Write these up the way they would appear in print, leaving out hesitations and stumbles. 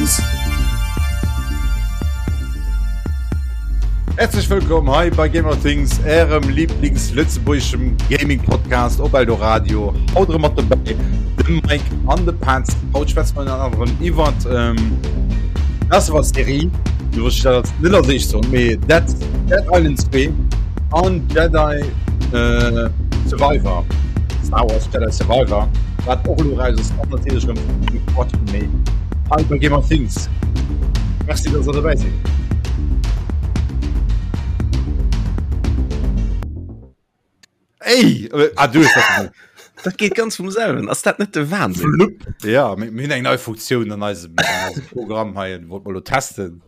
Things. Häerzlech wëllkomm hei bei Gamer Things, ärem Lieblings-lëtzebuergeschem Gaming-Podcast op Eldoradio. Haut erëm mat dobäi de Mike an de Petz. Haut schwätze mer ënner anerem iwwert ähm, Last of Us Serie, du wosst ich dat net als éischt soen, mee Dead, Dead Island 2 an Jedi äh, Survivor, Star Wars Jedi Survivor, wat och elo raus ass, an natierlech erëm de Quatsch méi hei bei Gamer Things. Merci, dass der dobäi sidd. Ey, äh, ah, du hues dat gemaach. Dat geet ganz vum selwen. Ass dat net de Wahnsinn? Flupp. Ja, mir mir hunn eng nei Funktioun an eisem, an eisem Programm hei, wollt mer lo testen.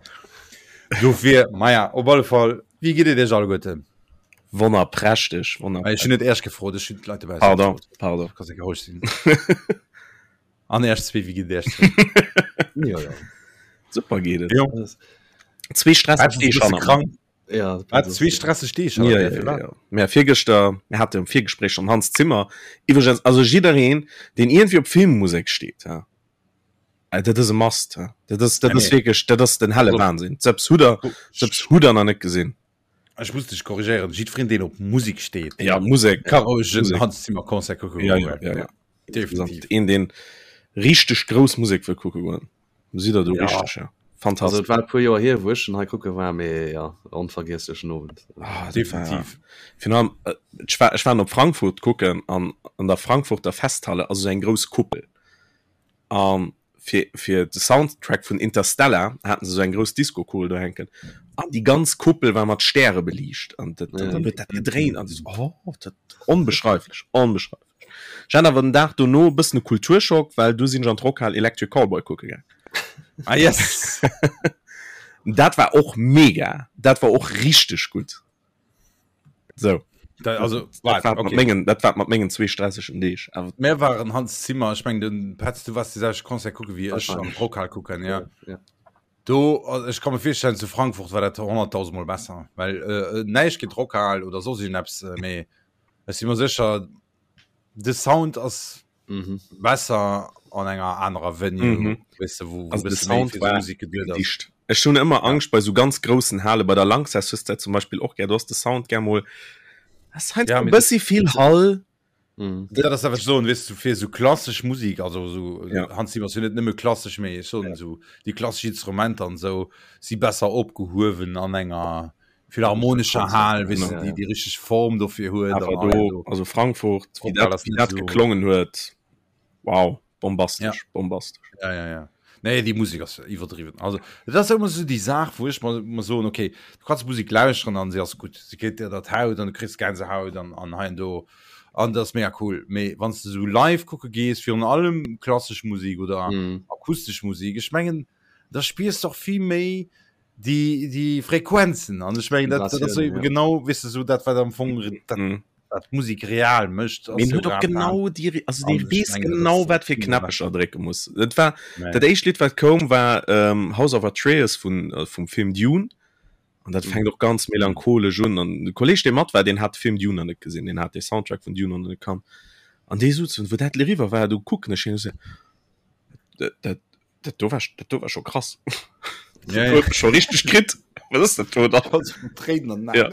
Dofir, maja, op alle Fall, wéi geet et iech alleguerten? Wonnerprächteg, Ech wonnerprächteg. hunn net Iech gefrot, ech hunn d'Leit dobausse Pardon, gefrot. pardon. Kanns enke roueg sinn. An Iech zwee, wéi geet et iech zwee? Jo, jo. Super geet et. Jo. Zwee stresseg Wat, Deeg bist du hanner mer. krank? Ja, Wat, zwee stresseg Deeg Ja, hanner ja, dir? ja, Firwat? ja. Mä virgëschter, mir hate e Virgespréich am Hans Zimmer. Iwwregens, also jiddereen, deen iergendwéi op Filmmusek steet, ja, äh, dat ass e Must. Ja. Dat ass, dat Ja, ass nee. wierklech, dat ass den helle Also, Wahnsinn. Selbst hutt der, selbst hutt der nach net gesinn. Ech muss dech korrigéieren, jiddwereen deen op Musek steet, Ja, Musek, ka roueg en Musek. Hans Zimmer Concert kucke Ja, goen. ja, ja, ja. Definitiv. Een, deen richteg grouss Musek wëll kucke goen. Sidd der do Ja. richteg, ja. Also Fantastesch. et war e puer Joer hier, wou ech en hei kucke war, mee ja, onvergiesslechen Owend. Ah, dat war, Definitiv. virun allem, äh, ech war, ech war op Frankfurt kucken an an der Frankfurter Festhalle ass esou eng grouss Kuppel. An fir, fir de Soundtrack vun Interstellar haten se esou eng grouss Disco-Kugel do hänken. An déi ganz Kuppel war mat Stäre beliicht. An dat, dat, dann huet dat gedréint an du so, oh, dat onbeschreiflech, onbeschreiflech. Ech hat awer den Dag dono e bëssen e Kulturschock, well du sinn ech an d'Rockhal Electric Callboy kucke gaang. Ah yes! Dat war och mega, dat war och richteg gutt. Sou. Da, also, Dat wart, war mat okay. mengen, dat war mat mengen zwee stressegen Deeg. Awer Mir waren Hans Zimmer, ech meng den Petz, du warst déi selwecht Concert kucke wéi ech am Wahrscheinlech. Rockhal kucken, ja. Ja. Do, also ech ka mir virstellen, zu Frankfurt war dat 100.000 Mol besser, well äh, näischt géint Rockhal oder soss iergendeppes, äh, mee ech si mer sécher, de Sound ass Mhm. besser an enger anerer Venue, Mhm. weess de, wou, wou Also de bësse méi Sound fir war Musek geduet ass. dicht. Ech hunn ëmmer Angscht bei sou ganz groussen Hale, bei der Lanxess hues de dat zum Beispill och gär, do ass de Sound gär mol, ass heiansdo Ja, e mee dat, bëssi vill Hall. Mhm. dat ass dat, wat ech soen, weess du, fir sou klassesch Musek, also sou, Ja. Hans Zimmer ass jo net nëmme klassesch, mee ech soen sou, déi klassesch Instrumenter an sou si besser opgehuewen an enger philharmonescher Hal, weess Genau. du, déi déi richteg Form dofir huet Awer an do, do. also Frankfurt, wéi Rockhal dat, ass wéi net dat sou. geklongen huet, wow, Ja. bombastesch, bombastesch. Ja, ja, ja. Nee, déi Musek ass iwwerdriwwen. Also, dat ass ëmmer sou déi Saach, wou ech mer, mer soen, okay, du kanns Musek lauschteren an se ass gutt. Se kritt dir dat Haut an du kriss Gänsehaut an, an hei an do. An dat ass mega cool. Mee wann s de sou live kucke gees, virun allem klassesch Musek oder Mhm. akustesch Musek, ech mengen, da spiers de och vill méi déi, déi Frequenzen. An ech mengen, dat, dat ass Vibratiounen, eben ja. genau, weess de, sou dat, wat am Fong dat, Mhm. wat Musek real mécht, ass Min jo huet och grad dat. genau déi, also An dee ech weess mengen, dat genau ass wat fir vill méi Knäpp ech erdrécke muss. Et war Nee. dat éischt Lidd wat koum war ähm, House of Atreus vun äh, vum Film Dune an dat fänkt och ganz melancholesch un an de Kolleg dee mat war, deen hat de Film Dune nach net gesinn, deen hat de Soundtrack vun Dune nach net kannt an dee sot wou dat eriwwer war, du kucken ech hien an ech sou, dat dat Dat do war, dat do war scho krass. Ja, ja. Scho richteg kritt. Was ass dat do da? Tréinen an Ja.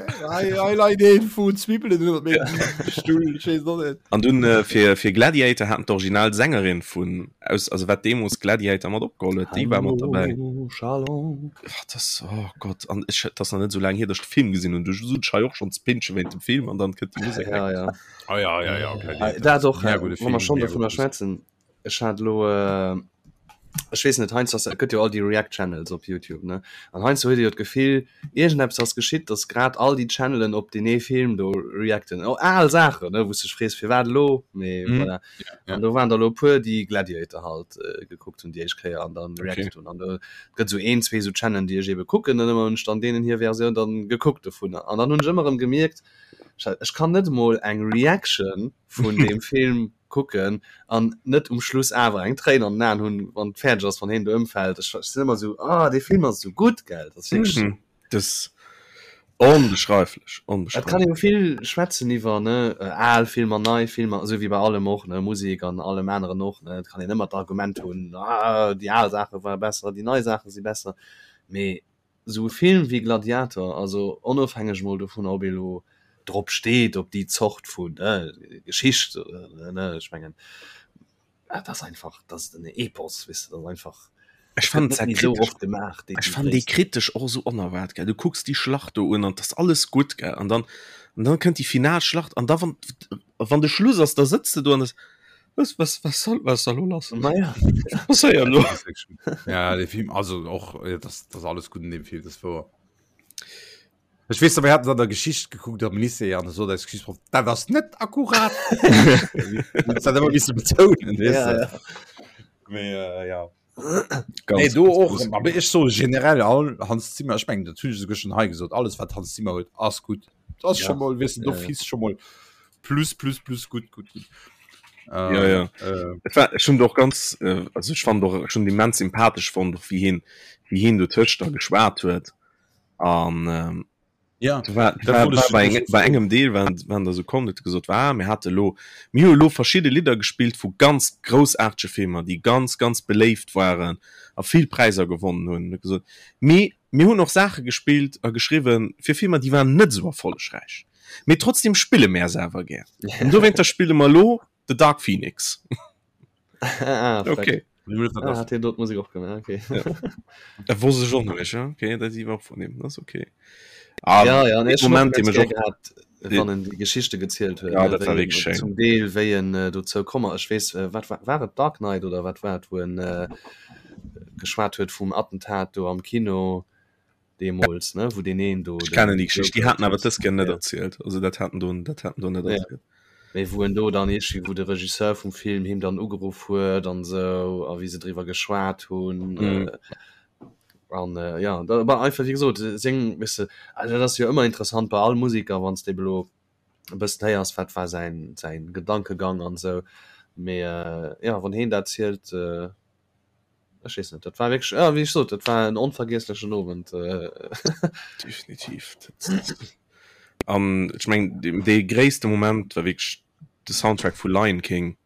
Leit een vu Zwibbelen iwwer mengem Stull. Ich weess och net. An dunn äh, fir, fir Gladiator haten d'Original Sängerin vun aus also wat deemools Gladiator mat opgeholl huet, déi war mat dabei. Hallo, Shalom. Ach, das, oh Gott, an ech, dat ass nach net sou laang hier, dass ech de Film gesinn hunn. Du sot ech hei och schonns Pinsche wéint dem Film an dann kënnt déi Musek. Ja, ja. Ah, ja, ja, ja, Gladiator. Dat och, Mega äh, gudde wa mer Film, schonn mega dovunner gudde Musek. schwätzen. Ech hat elo, ech weess net, heiansdo ass, et gëtt jo all déi React Channels op Youtube, ne? An heiansdo huet ee jo d'Gefill, iergendeppes ass geschitt, datt grad all déi Channelen op deen ee Film do reacten. Och al Saachen, ne, wou s de dech frees, firwat elo? Mee voilà. An do waren der elo e puer, déi Gladiator halt gekuckt hunn déi éischt Kéier an dann reacted hunn. An do gëtt esou een, zwee esou Channelen, déi ech eebe kucken, an ëmmer hunn ech dann deenen hir Versioun dann gekuckt dovunner. An dann hunn ech ëmmer erëm gemierkt, ech kann net emol eng Reaction vun deem Film kucken an net um Schluss awer eng Tréin an den Aen hunn, wann et fäerdeg ass, wann heen do ëmfält. Ech sinn ëmmer esou, ah, dee Film ass esou gutt, gell? Dat ass wierklech. Mhm. Das. Onbeschreiflech, onbeschreiflech. Et kann ee jo vill schwätzen iwwer, ne, al Filmer, nei Filmer, esou wéi bei allem och, ne, Musek an allem aneren och, ne. Et kann een ëmmer d'Argument hunn, ah, déi al Saache ware besser, déi nei Saache si besser. Mee esou e Film wéi Gladiator, also onofhängeg emol dovunner, ob ee lo drop steet, op déi Zort vun, ne, Geschicht, ne, ech mengen, Dat ass einfach, dat ass en Epos, weess de, dat ass einfach. Ech fand dat kritesch, so oft gemaach, déi, ech fand déi kritesch och esou onerwaart, gell. Du kucks déi Schlacht do un an 't ass alles gutt, gell, an dann, an dann kënnt déi final Schlacht an da wann, wann de Schluss ass, da sëtz de do an das, was, was, was soll, was ass da lo lass? Naja. Was passéiert lo? Ja, de Film, also och, ja, das, das alles gutt an deem Film, das wouer. Ech weess, mir haten an der Geschicht gekuckt am Lycée an sot eis Geschichtsproff, dat ass net akkurat. Dat ëmmer misse betounen, weess Ja, de. ja. Mee äh, ja. Ganz, Nee, do ganz och, groß. aber ech so generell all Hans Zimmer, ech mengen, dat hunn ech esouguer schon hei gesot, alles wat Hans Zimmer huet, ass gutt. Dat ass Ja. schon mol, weess de, do Ja, ja. fiss schon mol plus, plus, plus gutt, gutt, gutt. Ja, ja. Äh, Et war ech hunn och ganz äh, also ech fand och schon immens sympathesch fonnt, och wéi hien, wéi hien do tëscht da geschwat huet. An ähm, ja, war, dat war, wollt war ech- bei, eng, bei engem Deel waren, waren da so komm, huet gesot war mir hate lo mir hu lo verschidde Lidder gespillt vu ganz groussaartege Filmer, déi ganz ganz beléift waren a vill Präisser gewonnen hunn. Huet gesot mee mir hunn och Saache gespillt a geschriwwen fir Filmer, déi waren net esou erfollegräich, mee trotzdem spille mär se awer gär. An dowéinter spille mer lo The Dark Phoenix. Ah, Okay. Ah, hat hien do d'Musek och gemaach, okay. Ja. Dat wosst ech och nach nicht, ja. Okay, dat iwwer vun him, das okay. Ah, ja, ja, nee, dee Moment, dee mech och gehabt, wann en déi Geschichte gezielt huet. Ja, ne, dat war wéi en wierklech schéin. Zum Deel wéi en äh, dozou komm ass. Ech weess, äh, wat war, war et Dark Knight oder wat war et, wou en äh, geschwat huet vum Attentat do am Kino deemools, ne, wou deen een do Ech den kennen déi Geschicht, déi Joker haten awer dës Kéier net Ja. erzielt. Also dat haten do, dat haten do net Ja. erzielt. Mee wou en do dann iergendwéi, wou de Regisseur vum Film him dann ugeruff huet an esou, a wéi se driwwer geschwat hunn. Mhm. An ja, da war einfach, wéi gesot, seng, weess de, also dat ass jo ëmmer interessant bei all Museker, wann s de ebe lo e bëssen héiers, wat war säin, säin Gedankegang an esou. Mee ja, wann heen dat zielt, Ech weess net, dat war wierklech, ja, wéi ech sot, dat war en onvergiesslechen Owend. Definitiv. An ech meng, dee gréisste Moment war wierklech de Soundtrack vu Lion King,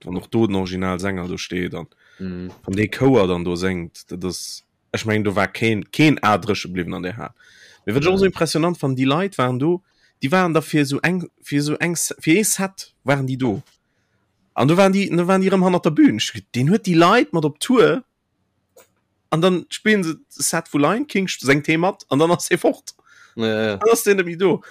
wann och do den Originalsänger do steet an mm. wann dee Chouer dann do séngt, dat ass, ech meng, do war keen, keen A dréche bliwwen an där Hal. Mee wat ech och esou impressionant fannen, déi Leit waren do, déi waren da fir esou eng, fir esou eng, fir ee Set waren déi do. An du waren déi, du waren déi rëm hannert der Bühn. Ech, deen huet déi Leit mat op Tour an dann spillen se Set vu Lion King, sengt hee mat an dann ass hee fort. Ja, ja. Dann ass deen net méi do.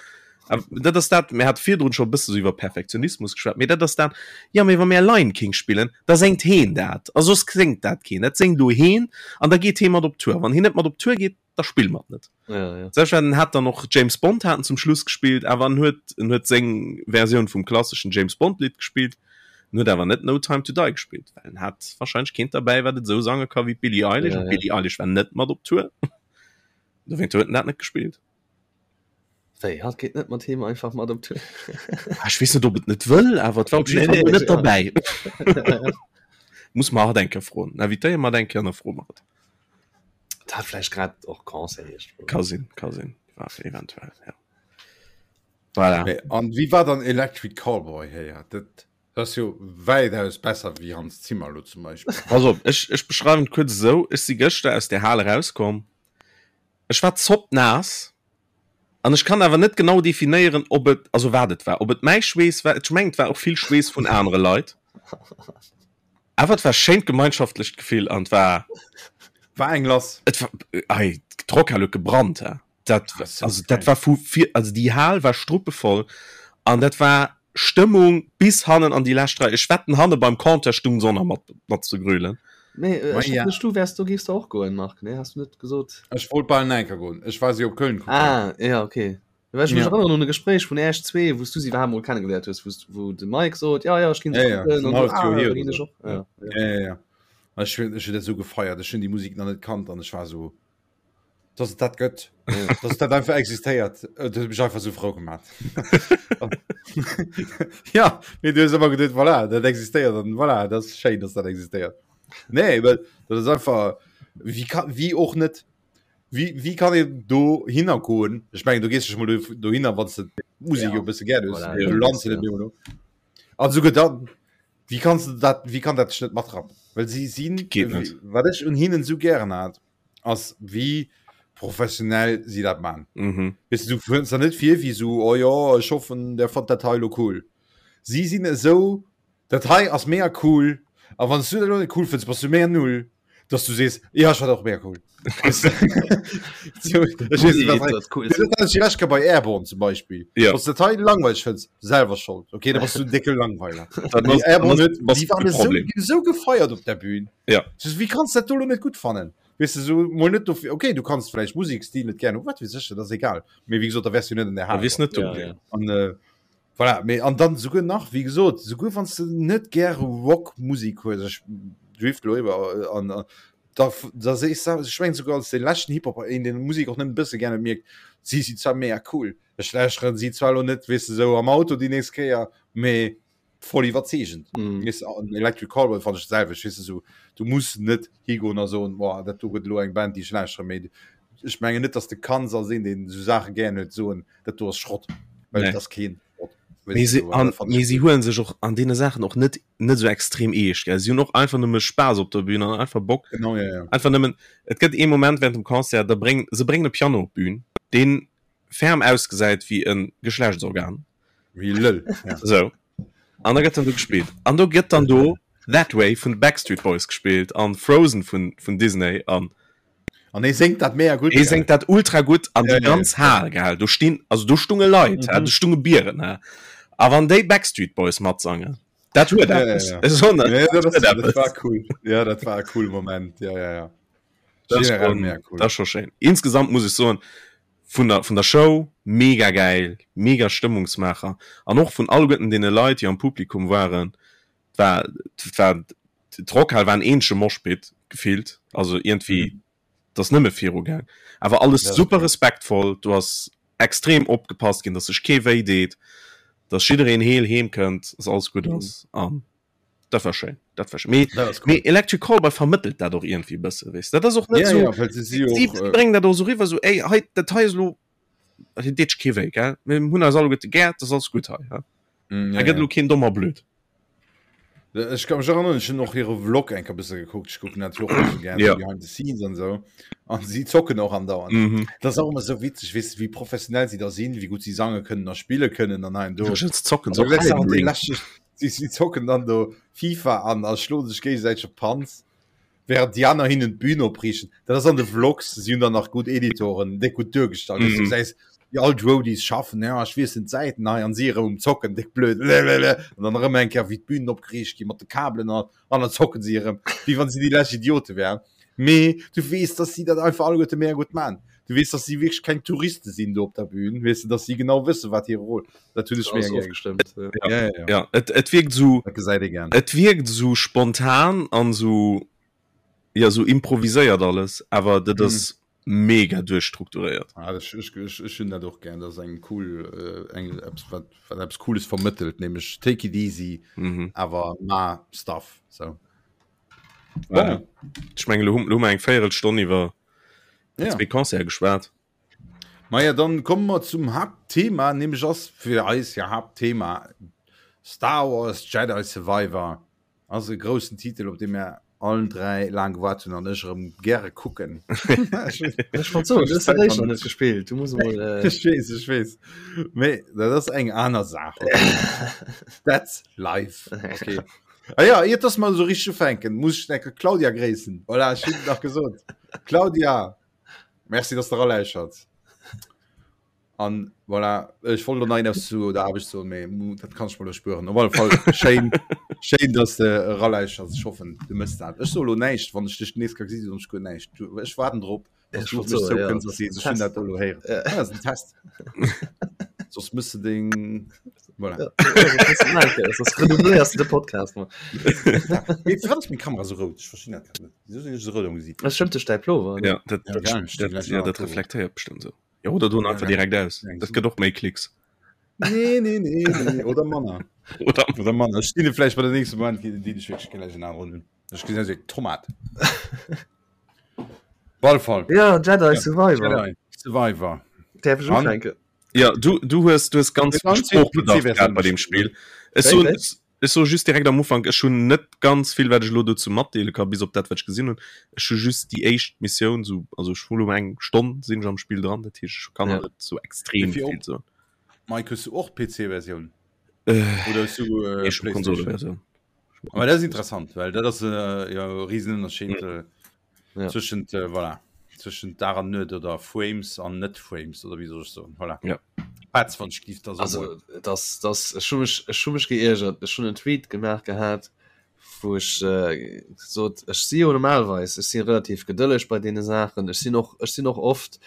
A dat ass dat, mir hat virdrun scho e bësse sou iwwer Perfektionismus geschwat, mee dat ass dat, ja mee wa mir Lion King spillen, da sengt heen dat a soss séngt dat keen. Dat séngt elo heen an da geet hee mat op Tour. Wann heen net mat op Tour geet, da spille mer et net. Ja, ja. Selbstverständlich hat dann och James Bond haten zum Schluss gespielt, awer en huet en huet seng Versioun vum klasseschen James Bond Lidd gespielt, en huet awer net No Time to Die gespielt, well en hat wahrscheinlech keent derbäi wat et esou sange ka wéi d'Billie Eilish Ja, an ja. d'Billie Eilish war net mat op Tour. Dowéint huet en dat net gespielt. Wéi, hatt geet net mat him einfach mat op Tour? Ah, ech weess net ob et net wëll, awer et war op jidde Nee, Fall nee, net ja. derbäi. Muss mer hatt eng Kéier froen. Invitéiere mer hatt eng Kéier an da froe mer et. Dat hat vläicht grad och Concert iergendwou. Ka sinn, ka sinn. War eventuell, ja. Voilà. Mee, an wéi war dann Electric Callboy héier? Dat ass jo wäitaus besser wéi Hans Zimmer lo zum Beispill. Pass op, ech, ech beschreiwen et kuerz esou, Ech si gëschter aus där Hal erauskomm, ech war zoppnaass an ech kann awer net genau definéieren, ob et, also wat et war, ob et mäi Schweess war, ech mengen et war och vill Schweess vun anere Leit. Awer et war schéint gemeinschaftlecht Gefill an et war War eng lass. Et war ei d'Rockhal huet gebrannt he. Dat Ah, so also dat geil. war vu vir also déi Hal war struppevoll an dat war Stëmmung bis hannen an déi lescht Rei. Ech wetten hanne beim Compteur stung se och nach mat mat ze grölen. Nee, äh, Ma ech ja. dacht, du wärs do géifs du och goen, Marc, nee, has du net gesot? Ech wollt bal enker goen. Ech war si op Köln kucken. Ah, ja, okay. Well ech mech Ja. erënneren un e Gespréich vun Äech zwee, wou s du si iwwerhaapt mol kennegeléiert hues, wou s wou de Mike sot, ja, ja, ech ginn se Ja, ja, kucken, en an du, halleft ah, Joer hier da oder ginn ech so. och. Ja, ja. Ja, ja, ja. Ech hunn ech hunn dat esou gefeiert. Ech hunn déi Musek nach net kannt an ech war esou, dass et dat gëtt, Ja. dass et dat einfach existéiert. Dat huet mech einfach esou frou gemaat. Ja, mee du hues ëmmer geduet, voilà, dat existéiert an voilà, dat ass schéin, dass dat existéiert. Nee, well dat ass einfach, wéi ka, wéi och net. Wéi, wéi kann een do hinner goen? Ech mengen, du gees dech mol do, dohinner, wann s de d'Musek jo e bësse gär hues. Voilà, Du lands jo net méi elo. An souguer dann, wéi kanns de dat, wéi kann dat dech net matrappen? Well si sinn, Geet net. wat ech un hinnen esou gären hat, ass wéi professionell si dat man. Mhm. Weess de, du kënns der net vir wéi esou, oh jo, ech hoffen, der fannt dat hei elo cool. Si sinn esou, dat hei ass mega cool, a wann s du dat elo net cool fënns, bass du mega null. dass du sees ja ich war auch mehr cool bei Airborne zum Beispiel ja. was Teil langweilig findest, selber schuld okay da bist du dicke Langweiler Airborne was, was so, so gefeiert op der Bühne ja wie kannst du dat nicht gut fannen weißt du so mal nicht dafür, okay du kannst vielleicht Musikstil nicht gerne wat wie sicher das egal mir wie gesagt da wärst du nicht in der Hand nicht ja, ja. Und, äh, Voilà, mee an dann souguer nach, wéi gesot, souguer wann s de net gäre Rockmusek hues, ech drift elo iwwer, an da da sees de, ech mengen souguer als dee leschten Hip-Hopper, een deen Musek och nëmmen e bësse gär huet, mierkt, si sinn zwar mega cool, ech lauschteren si zwar elo net, weess de, sou am Auto déi nächst Kéier, mee voll iwwerzeegend. Weess de, an Electric Callboy fannen ech d'selwecht, weess de, sou du muss net higoen a soen, boah, dat do gëtt elo eng Band déi ech lauschtere, mee ech mengen net, datt s de kanns als een deen esou Saache gären huet, soen, dat do ass Schrott well nee. das keen Schrott. Mee si, an, mee si huelen sech och an deene Saachen och net net sou extrem eescht gell. Si hunn och einfach nëmme Spaass op der Bühn an einfach Bock. Genau, ja, ja. Einfach nëmmen et gëtt ee Moment während dem Concert, da bréng se bréngen e Piano op d'Bühn, deen ferm ausgesäit wéi e Geschlechtsorgan. Wéi e Lëll, ja. Sou. An da gëtt dann do gespillt. An do gëtt dann do That Way vun de Backstreet Boys gespillt an Frozen vun vun Disney an An hie séngt dat mega gutt. Hie séngt dat ultra gutt an déi ganz Hal gell, do stinn, also do stunge Leit, mhm. do stunge Bieren. He. A wann déi Backstreet Boys matsangen, dat huet ja, ja, ja. So, ne? ja, dat, das, dat war cool. Ja, dat war e cool Moment. Ja, ja, ja. Das Generell schon, mega cool. Das schon schön. Insgesamt muss ich soen, vun der, vun der Show mega geil, mega Stëmmungsmacher an och vun alleguerten deene Leit, déi am Publikum waren, war war d'Rockhal war en eenzege Moshpit gefillt, also iergendwéi mhm. dat ass nëmme viru gaang. Awer alles ja, super respektvoll, du ass extrem opgepasst ginn, dass sech kee wéi deet, dass jiddereen heel heem kënnt, dass alles gutt mhm. ass an dat war schéin. Dat war schön. Mee, das cool. mee Electric Callboy vermëttelt dat och irgendwie bësse wees. Dat ass och net ja, so ja, well sie, sie, och, sie äh, bréngen dat och so riwwer so ey hei dat hei ass lo dat deet kee wéi gell. Mir hunn eis alleguerte gär, dat ass alles gutt hei. Ja? Mm, Da ja, gëtt ja. lo keen domm a blöd. Ech kann mech erinnern, ech hunn och hire Vlog eng Kéier bësse gekuckt. Ech kucken dat jo och bësse gär, Ja. so behind the scenes an esou. An si zocken och andauernd. Mhm. Dat ass och ëmmer esou witzeg, weess de, wéi professionell si da sinn, wéi gutt si sange kënnen a spille kënnen an hei an do. Ja, se zocken An so da gesäis de Elden awer déi Ring. lächerlech, si, si zocken dann do FIFA an a schloe sech géigesäiteg op d'Panz. Während déi aner hinnen d'Bühn opriichten. Dat ass an de Vlogs, si hunn dann nach gutt Editoren, déck gutt duergestallt. Mm -hmm. Du gesäis, wéi all d'Roadies schaffen, ja, ech wiesselen d'Säiten hei an si erëm um Zocken, déck blöd, lelele. An dann erëm eng Kéier, wéi d'Bühnen opgeriicht ginn mat de Kabelen an, an dann zocken si erëm, wéi wann si déi lescht Idiote wären. Mee du weess, dass si dat einfach alleguerte mega gutt man. Du weess, dass si wierklech keng Touriste sinn do op der Bühn, weess de, dass si genau wëssen, wat hire Rôle. Dat hunn ech mega gär. Ofgestëmmt. Ja. Ja, ja, ja. Ja, et, et wierkt esou, Dat gesäit ee gär. et wierkt esou spontan an esou, ja, esou improviséiert alles, awer dat ass mega duerchstrukturéiert. Ah, ech, ech, ech, ech hunn dat och gär. Dat ass eng cool, äh, eng, eppes, wat, wat eppes Cooles vermëttelt, nämlech take it easy, Mhm. awer ma Stuff. So. Voilà. Ech mengen, lo hu, lo hu mer eng Véierelstonn iwwer Ja. zwee Concerte geschwat. Maja, dann komme mer zum Haaptthema, nämlech ass fir eis ja Haaptthema Star Wars Jedi Survivor. Ass e groussen Titel, op dee mir allen 3 laang gewaart hunn an ech erëm gäre kucken. Ech wollt soen, du hues dat éischt nach net gespillt. Du muss emol. Äh... Ech weess, ech weess. Mee dat ass eng aner Saach. Okay. That's life. Okay. Ah ja, iert dass mer esou richteg ufänken, muss ech enke Claudia gréissen. Voilà, ech hunn et nach gesot. Claudia, merci, dass de eraläuschert. An voilà, ech wollt elo nach eppes zu der Aarbecht soen, mee dat kann ech mer elo spueren. Op alle Fall schéin, schéin, dass de eraläuschers. Ech hoffen, du mëss dat. Ech soe elo näischt, wann ech dech nees ka gesinn, soen ech guer näischt. Du, ech waarden drop, dass du op mech zoukënns a sees, ech hunn dat elo héieren. Ja. Ah, dat ass en Test. Soss mëss de deng, voilà. Ja, soss redoublierst du de Podcast. Mee firwat ass meng Kamera esou rout? Ech verstinn dat grad net. Wieso sinn ech esou rout am Gesiit? Dat stëmmt duerch däi Plover, ne? Ja, dat, Ja, dat, gell, ech dat, gläich ja, nach dat Plover. reflektéiert bestimmt so. Ja, oder doen Ja, einfach gell. direkt aus. Eng Dat so. gëtt och méi Klicks. Nee, nee, nee, nee. Oder manner. Oder Oder manner. Ech stinn vläicht bei der nächste Moment, déi ech wierklech gläich en aneren hunn. Ech gesinn aus wéi eng Tomat. Op alle Fall. Ja, Jedi Survivor. Jedi Survivor. Däerf ech ufänken? Ja, du, du hues, du hues ganz Ganz vill viel Sproochbedarf PC-Versioun gehabt bei dem Spiel. Ech Wéi, soen, wéi? ech soe just direkt am Ufank, ech hunn net ganz vill, wat ech elo dozou matdeele ka, bis op dat, wat ech gesinn hunn. Ech hu just déi éischt Missioun, sou, also ech hu lo eng Stonn sinn ech am Spill dran, dat heescht, ech kann Ja. nach net sou extrem Wéi vill vill soen. Mike, hues du och d'PC-Versioun? Äh, Oder hues du äh, nee, ech hu PlayStation? Konsoleversioun. Aber dat ass interessant, well dat ass äh, jo e Riesenunterschied. Äh, Ja. Zwëschent äh, voilà. Zwëschent Dag an Nuet oder Frames an net Frames oder wéi soll ech soen. Voilà. Ja. Petz, wann ech giff da so Also das, das, ech hu mech, ech hu mech geiergert. Ech hunn en Tweet gemaach gehat, wou ech äh, sot, ech si jo normalerweis, ech si relativ gedëlleg bei deene Saachen. Ech sinn och, ech sinn och oft,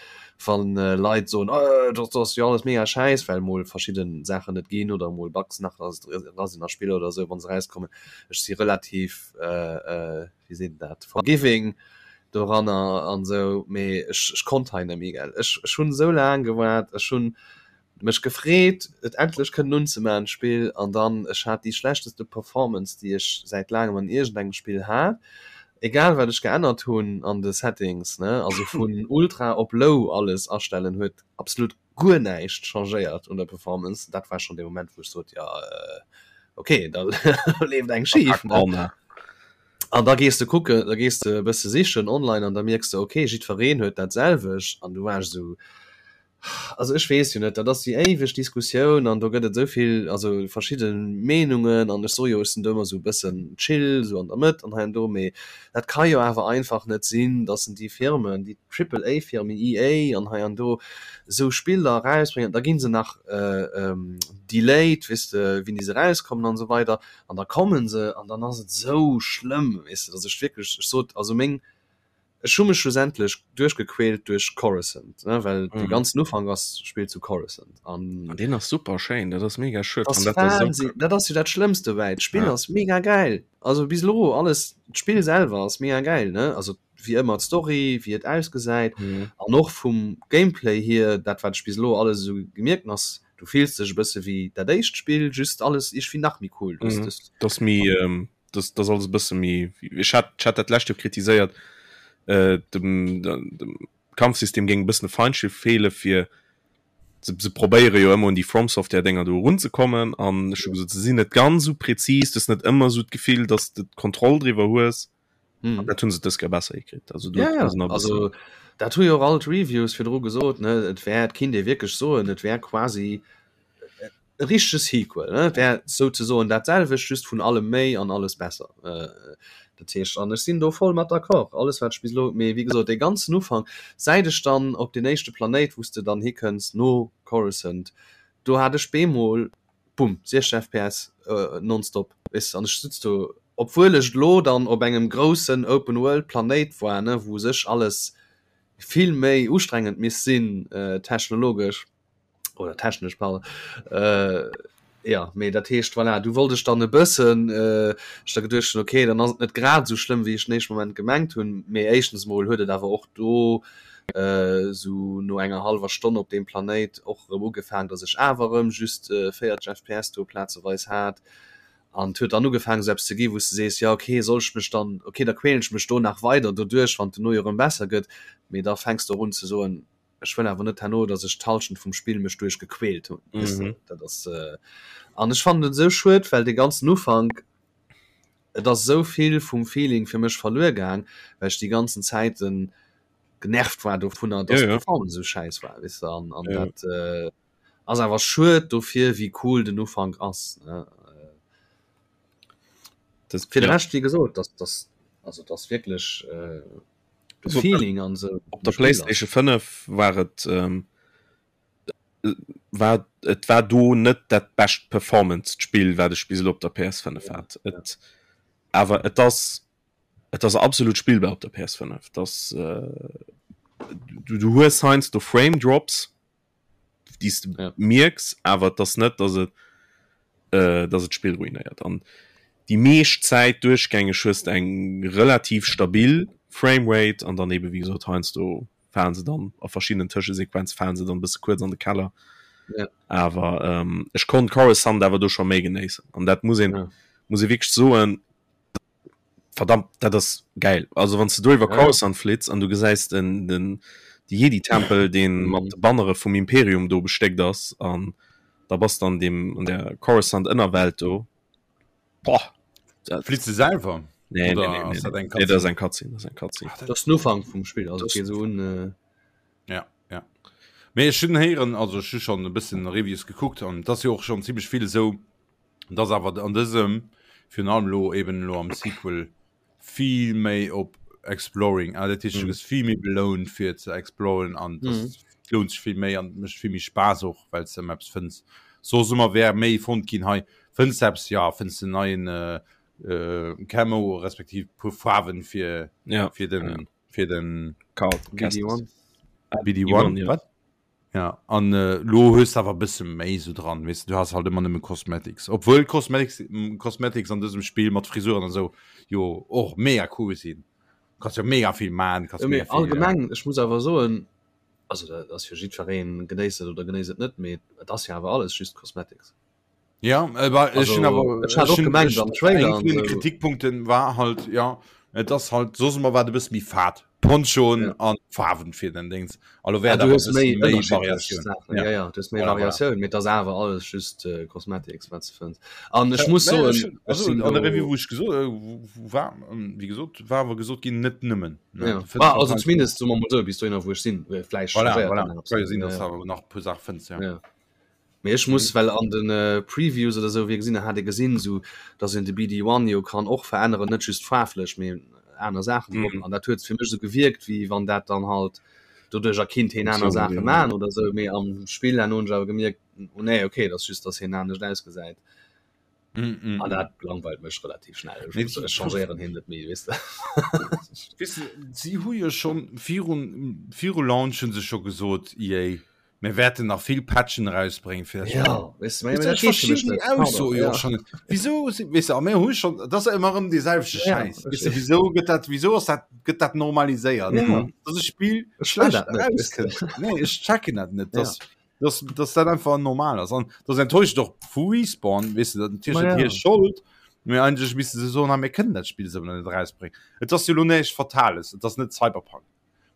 wann äh, Leit soen, äh, dat ass jo alles mega schäiss, well mol verschidden Saachen net ginn oder mol Bugs nach ra sinn a Spiller oder esou, wann se rauskommen. Ech si relativ äh, äh, wéi seet een dat, forgiving doranner an esou, mee ech, ech konnt hei net méi, gell. Ech, ech hunn esou laang gewaart, ech hunn mech gefreet, et endlech kënnen unzemaachen, d'Spill, an dann, ech hat déi schlechteste Performance, déi ech säit laangem an iergendengem Spill hat, egal wat ech geännert hunn an de Settings, ne, also vun Ultra op Low alles astellen, huet absolut guer näischt changéiert un der Performance. Dat war schonn dee Moment, wou ech sot, jo, okay, da leeft eng schif, ne. An da gees de kucken, da gees de e bësse sichen online an da mierks de, okay, jiddwereen huet dat selwecht an du waars esou, also ech weess jo net, dat ass déi éiweg Diskussioun an do gëtt et esou vill, also verschidde Meenungen an ech soe jo, ech sinn do ëmmer esou e bëssen chill, esou an der Mëtt an hei an do, mee dat ka jo awer einfach net sinn, datt déi Firmen, déi Triple A Firmen, EA an hei an do, esou Spiller erausbréngen, da gi se nach delayed, weess de, wéini se erauskommen an esou weider. An da kommen se an dann ass et esou schlëmm, weess de, datt ech wierklech, ech sot, also meng, ech hu mech schlussendlech duerchgequält duerch Coruscant, ne, well mm. de ganzen Ufank ass spillt zu Coruscant. An, an deen ass super schéin, dat ass mega schued. Dat ass, Wahnsinn, dat ass jo dat Schlëmmst dobäi. D'Spill ja. ass mega geil. Also bis elo alles, d'Spill selwer ass mega geil, ne? Also wéi ëmmer d'Story, wéi et ausgesäit mhm. an och vum Gameplay hier, dat wat ech bis elo alles esou gemierkt ass, du fills dech e bësse wéi dat éischt Spill, just alles iergendwéi nach méi cool. Mhm. Das, das méi ähm, das, das alles e bësse méi ech hat, ech hat dat lescht Joer kritiséiert äh, dem, dem Kampfsystem géing e bëssen e Feinschliff feele fir se, se probéiere jo ëmmer un déi From Software Dinger do erunzekommen an ech hu gesot se sinn net ganz esou präzis, du hues net ëmmer esou d'Gefill, dass de d'Kontroll driwwer hues. Hm. Dat hunn se dës Kéier besser hikritt. Also, ja, ja. also dat hu jo och all d'Reviews virdru gesot, ne? Et wär, et kinnt ee wierklech soen, et wär quasi e richtege Sequel, ne? Et wär souzesoen dat selwecht, just vun allem méi an alles besser. Äh, dat heescht, an ech sinn do voll mat d'accord, alles wat ech bis elo, mee wéi gesot, dee ganzen Ufank, säit ech dann op deen éischte Planéit, wou s de dann hikënns no Coruscant, do hat ech bemol Bumm, 60 FPS nonstop, weess de, an ech sutz do, obwuel ech elo dann op engem groussen Open World Planéit war, ne, wou u sech alles vill méi ustrengend misst sinn, technologesch oder technesch, pardon, jo, mee dat heescht, voilà, du wollt ech dann e bëssen, ech da geduecht hunn, okay, dann ass et net grad esou schlëmm, wéi ech den éischte Moment gemengt hunn, mee éischtens emol huet et awer och do Sou no enger hallwer Stonn op deem Planéit och erëm ugefaang, dass ech awer erëm just 40 FPS do plazeweis hat. An et huet dann ugefaang sou eppes ze gi wou s de sees, jo ok, soll ech mech dann, ok da quälen ech mech do nach weider doduerch, wann et dono jo erëm besser gëtt. Mee da fänks de och un ze soen, ech wëll awer net herno, dass ech d'Hallschent vum Spill mech duerch gequält hunn, weess de. Dat ass, an ech fannen et esou schued, well dee ganzen Ufank, et ass esou vill vum Feeling fir mech verluer gaang, well ech déi ganzen Zäiten genervt war dovunner, dass Ja, ja. d'Performance esou schäiss war, weess de, an, an Ja. dat äh, ass awer schued dofir, wéi cool den Ufank ass, ne. Das, Fir de ja. Rescht, wéi gesot, das, das, also das wierklech äh, de Also, Feeling an esou Op der vum Spill ass. PlayStation 5 war et ähm, war et war do net dat bescht Performance Spill wat ech bis elo op der PS5 hat. Et awer et ass et ass absolut spillbar op der PS5. Das äh, du, du hues heiansdo Frame Drops déi s de Ja. mierks, awer et ass net, dass et äh, dass et d'Spill ruinéiert. An déi meescht Zäit duerchgängeg hues de eng relativ stabil Framerate an dann ebe wéi gesot heiansdo falen se dann a verschiddenen Tëschesequenze falen se dann e bësse kuerz an de Keller. Ja. Awer ähm, ech konnt Coruscant awer do scho méi genéissen. An dat muss een Ja. muss ee wierklech soen. Verdammt, dat ass gäil. Also wann s de do iwwer Coruscant flitts an du gesäis den, den, de Jedi-Tempel, dee mat de Bannere vum Imperium do bestéckt ass an da bass de an deem, an der Coruscant-Ënnerwelt do. Boah! Dat. Flitts de selwer? Nee, nee, nee, nee, nee. Nee, dat ass eng Cutscene, dat ass eng Cutscene. Dat ass den Ufank vum Spill, also et geet esou un. Ja, ja. Mee ech hunn héieren, also ech hu schonn e bëssen Reviews gekuckt an et ass jo och schonn zimmlech vill esou, dass awer an dësem, virun allem elo eben elo am Sequel, vill méi op Exploring, ah dat heescht du gëss vill méi belount fir ze exploren an das lount sech vill méi an mécht vill méi Spaass och, well s de ëmmer eppes fënns. Soss ëmmer wär méi fonnt ginn hei fënns de eppes, ja fënns de neien Camo respektiv puer Faarwen fir fir den fir den BD1. BD1, wat? Ja, an äh, lo hues awer bësse méi so dran, weißt du, du hast halt immer nëmme Cosmetics. Obwohl Cosmetics, Cosmetics an dësem Spiel mat Frisuren an so jo och mega cool sinn. Kannst jo mega vill man, kannst ja, mega viel, allgemeng, äh, ech muss awer soen, also dat ass fir jiddwereen genéisst et oder genéisst et net, mee et ass jo awer alles just Cosmetics. Ja, aber also, ich aber, ich hat auch gemeint, am Trailer und so. Kritikpunkten war halt ja et ass halt so immer war du bist mi fad Ponchoen ja. an Farwen fir den Dings also wär ja, du hast méi Variatioun ja. Ja, ja, du hast méi Variatioun mit das awer alles just äh, Cosmetics wat ze fënns an ech muss so also, an der Review wo ich gesot äh, war ähm, wie gesot war awer gesot ginn net nëmmen ja. ah, also zumindest so mal so bis du wo ich sinn äh, vielleicht voilà, voilà. voilà. sinn, ja. nach puer Sachen fënns ja. ja. Mee ech muss, well an de Previews oder sou wéi gesinn, hat ee gesinn sou dass een de BD1 jo kann och veränneren, net just faarflech mee aner Saachen drop. An dat huet fir mech sou gewierkt wéi wann dat dann halt doduercher kinnt heen aner Saache man oder sou. Mee am Spill herno hunn ech awer gemierkt, oh nee okay, et ass just dass heen anescht ausgesäit. An dat langweilt mech relativ schnell. Ech muss, ech changéieren heen net méi, weess de. Weess de, si hu jo schonn virun, viru Launch hu se scho gesot, EA, Mir wäerten nach vill Patchen erausbréngen fir dat Ja, weißt du, dat geet fir mech net. Ausso jo schon net. Wieso si weess de, a mir hu schon dat ass ëmmer erëm dee selwechte Ja, Schäiss. Weess de, wieso gëtt dat wieso ass dat gëtt dat normaliséiert? Ja. Dass e Spill Ech wëll schlecht dat net, weess de. erauskënnt. Nee, ech checken dat net, Ja. dass dass dass dat einfach normal ass. An dat enttäuscht och vu Respawn, weess de, dat natierlech Ma net ja. hir Schold, mee eigentlech misste se soen, ha mir kënnen dat Spill esou net erausbréngen. Et ass jo elo näischt Fatales, et ass net Cyberpunk.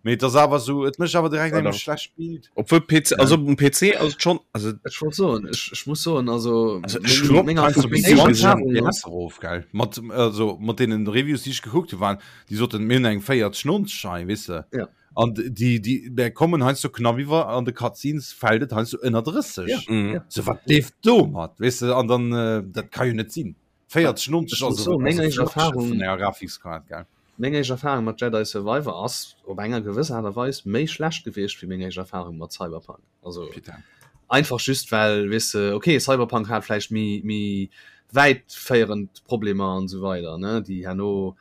Mee et ass awer sou, et mécht awer direkt engem Voilà. schlecht Bild. Obwohl PC, also um PC ass et schon, also Ech wollt soen, ech, ech muss soen, also, Also ech meng, hun meng heiansdo meng Video éischt gesinn. Erfahrung ass, erof, gell? Mat, also, mat deenen Reviews, déi ech gekuckt hu, waren, déi soten, mir hunn eng 40, 90 hei, weess de? Ja. An déi, déi, där kommen heiansdo knapp iwwer, an de Cutscenes fält et heiansdo ënner 30. Ja, Mhm. ja. So, wat leeft domat, weess de? An dann, äh, dat ka jo net sinn. 40, 90 Ech muss ass soen, meng ass e éischt Flaggschiff Erfahrung, vun enger Grafikskaart, gell? Meng éischt Erfahrung mat Jedi Survivor ass op enger gewëss Aart a Weis méi schlecht gewiescht wéi meng éischt Erfahrung mat Cyberpunk. Also Putain. einfach just well, weess de, okay, Cyberpunk hat vläicht méi méi wäitféierend Problemer an esou weider, ne, déi herno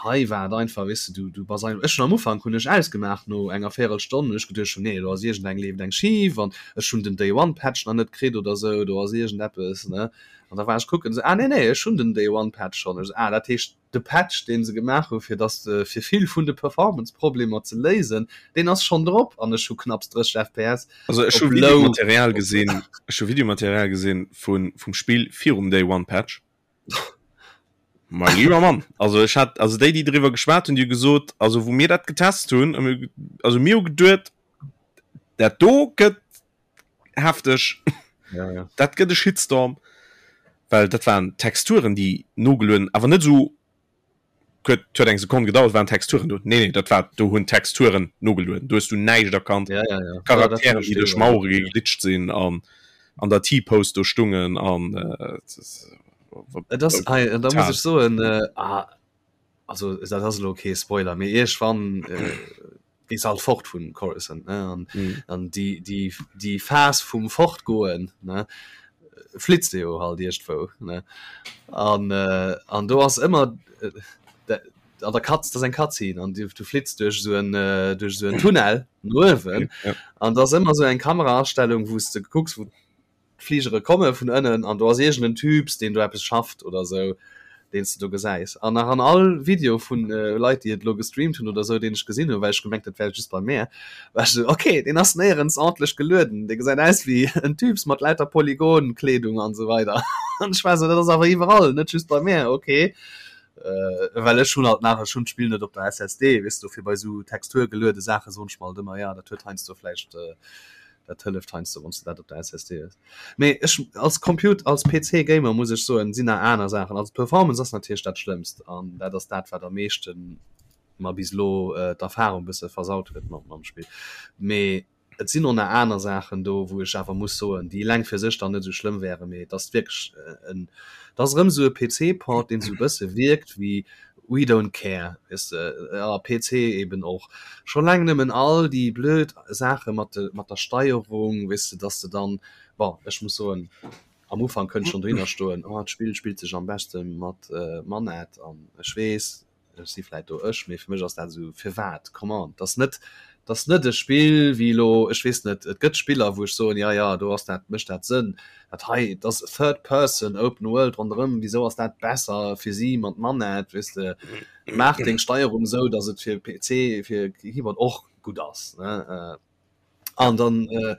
hei war et einfach, weess de, du du bass einfach, ech hunn am Ufank hunn ech ausgemaach no enger Véierelstonn, hunn ech geduecht, nee, do ass iergendeng leeft eng schif an ech hunn den Day One Patch nach net kritt oder esou, do ass iergendeppes, ne. An da war ech kucken, esou, ah nee, nee, ech hunn den Day One Patch schonn. Ech esou, ah, dat heescht, de Patch, dee se gemaach hu fir dass de, fir vill vun de Performance-Problemer ze léisen, deen ass schonn drop an ech hu knapps 30 FPS Also ech hu op Low. Videomaterial gesinn, ech hu Videomaterial gesinn vun, vum Spill virum Day One Patch. Mein lieber Mann, also ech hat, also déi, déi driwwer geschwat hunn, déi hu gesot, also wou mir dat getest hunn, hu mir, also mir hu geduet, dat do gëtt hefteg ja, ja. dat gëtt e Shitstorm, well dat waren Texturen déi nogelueden, awer net esou huet huet eng Sekonn gedauert waren Texturen do. Nee nee, dat war do hunn Texturen nogelueden, do hues du näischt erkannt. Ja, ja, ja. Charakteren déi duerch Mauere geglitscht sinn an an der T-Pose do stungen an äh, Et ass hei, da muss ech soen äh, ah, also dat ass elo kee Spoiler, mee iergendwann äh, gees halt fort vun Coruscant ne an mm. an die die die Phas vum fortgoen ne flitzt de jo halt iergendwou ne an äh, an do ass ëmmer äh, de, an der Katz das eng Cutscene an du, du flitzt duerch so en äh, duerch so en Tunnel no uewen ja. an da ass ëmmer so eng Kameraastellung wous de kucks wou d'Fligere komme vun ënnen an do ass iergend en Typs, deen do eppes schafft oder sou, deen s de do gesäis. An nach an all Video vun Leit, déi et elo gestreamt hunn oder sou, deen ech gesinn hunn, well ech gemengt, dat wär just bei mär, war ech sou, ok, deen ass néierens ordentlech gelueden, dee gesäit aus wéi en Typs mat lauter Polygon-Kleedung an sou weider. An ech war sou, dat ass awer iwwerall, net just bei mär, ok. Äh, well ech hunn halt nach, ech hunn d'Spill net op der SSD, weess du, fir bei esou texturgeluede Saache soen ech mer halt ëmmer, ja, dat huet heiansdo vläicht, äh, dat hëlleft heiansdo, wann s de dat op der SSD hues. Mee ech als Comput-, als PC-Gamer muss ech soen, sinn nach aner Saachen. Also d'Performance ass natierlech dat Schlëmmst an dat ass dat, wat am meeschten mer bis elo äh, d'Erfahrung bësse versaut huet mat mam Spill. Mee Et sinn och nach aner Saachen do, wou ech awer muss soen, déi eleng fir sech dann net esou schlëmm wären, mee et ass wierklech en, et ass erëm esou e PC-Port, deen esou e bësse wierkt wéi we don't care, weess de, a PC eben och. Scho laang nëmmen all déi blöd Saache mat de, mat der Steierung, weess de, dass de dann, bon, ech muss soen, am Ufank kënnt schonn dohinner stoen, oh, d'Spill spillt sech am beschte mat Manett an ech weess, Ech si vläit do ech, mee fir mech ass dat esou, firwat? Come on, dat ass net, dat ass net e Spill wéi elo, ech weess net, et gëtt Spiller, wou ech soen, jo, jo, do ass dat, mécht dat Sënn. Dat hei, dat ass Third Person, Open World ronderëm, wisou ass dat besser fir si mat Manett, weess de? Maach deng Steierung esou, datt et fir PC, fir Keyboard och gutt ass, ne? An dann äh,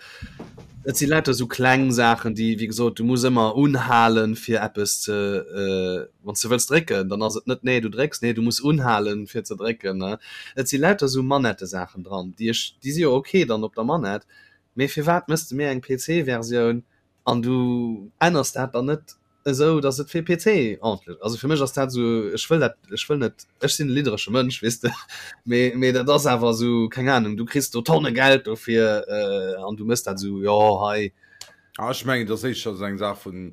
et si lauter sou kleng Saachen, déi wéi gesot du muss ëmmer unhalen fir eppes ze äh, wann s de wëlls drécken, dann ass et net nee du drécks, nee du muss unhalen fir ze drécken ne. Et si lauter sou Manettesaachen dran, déi ech déi si jo ok dann op der Manett, mee firwat mëss de mir eng PC-Versioun An du änners dat dann net esou, datt et fir PC ordntlech, also fir mech ass dat esou, ech wëll dat, ech wëll net, ech sinn e lidderesche Mënsch, weess de, mee, mee dat ass awer esou, keng Ahnung, du kriss do Tonne Geld dofir an du méchs dat esou, jo hei. Ah, ech mengen, et ass éischter esou eng Saach vun,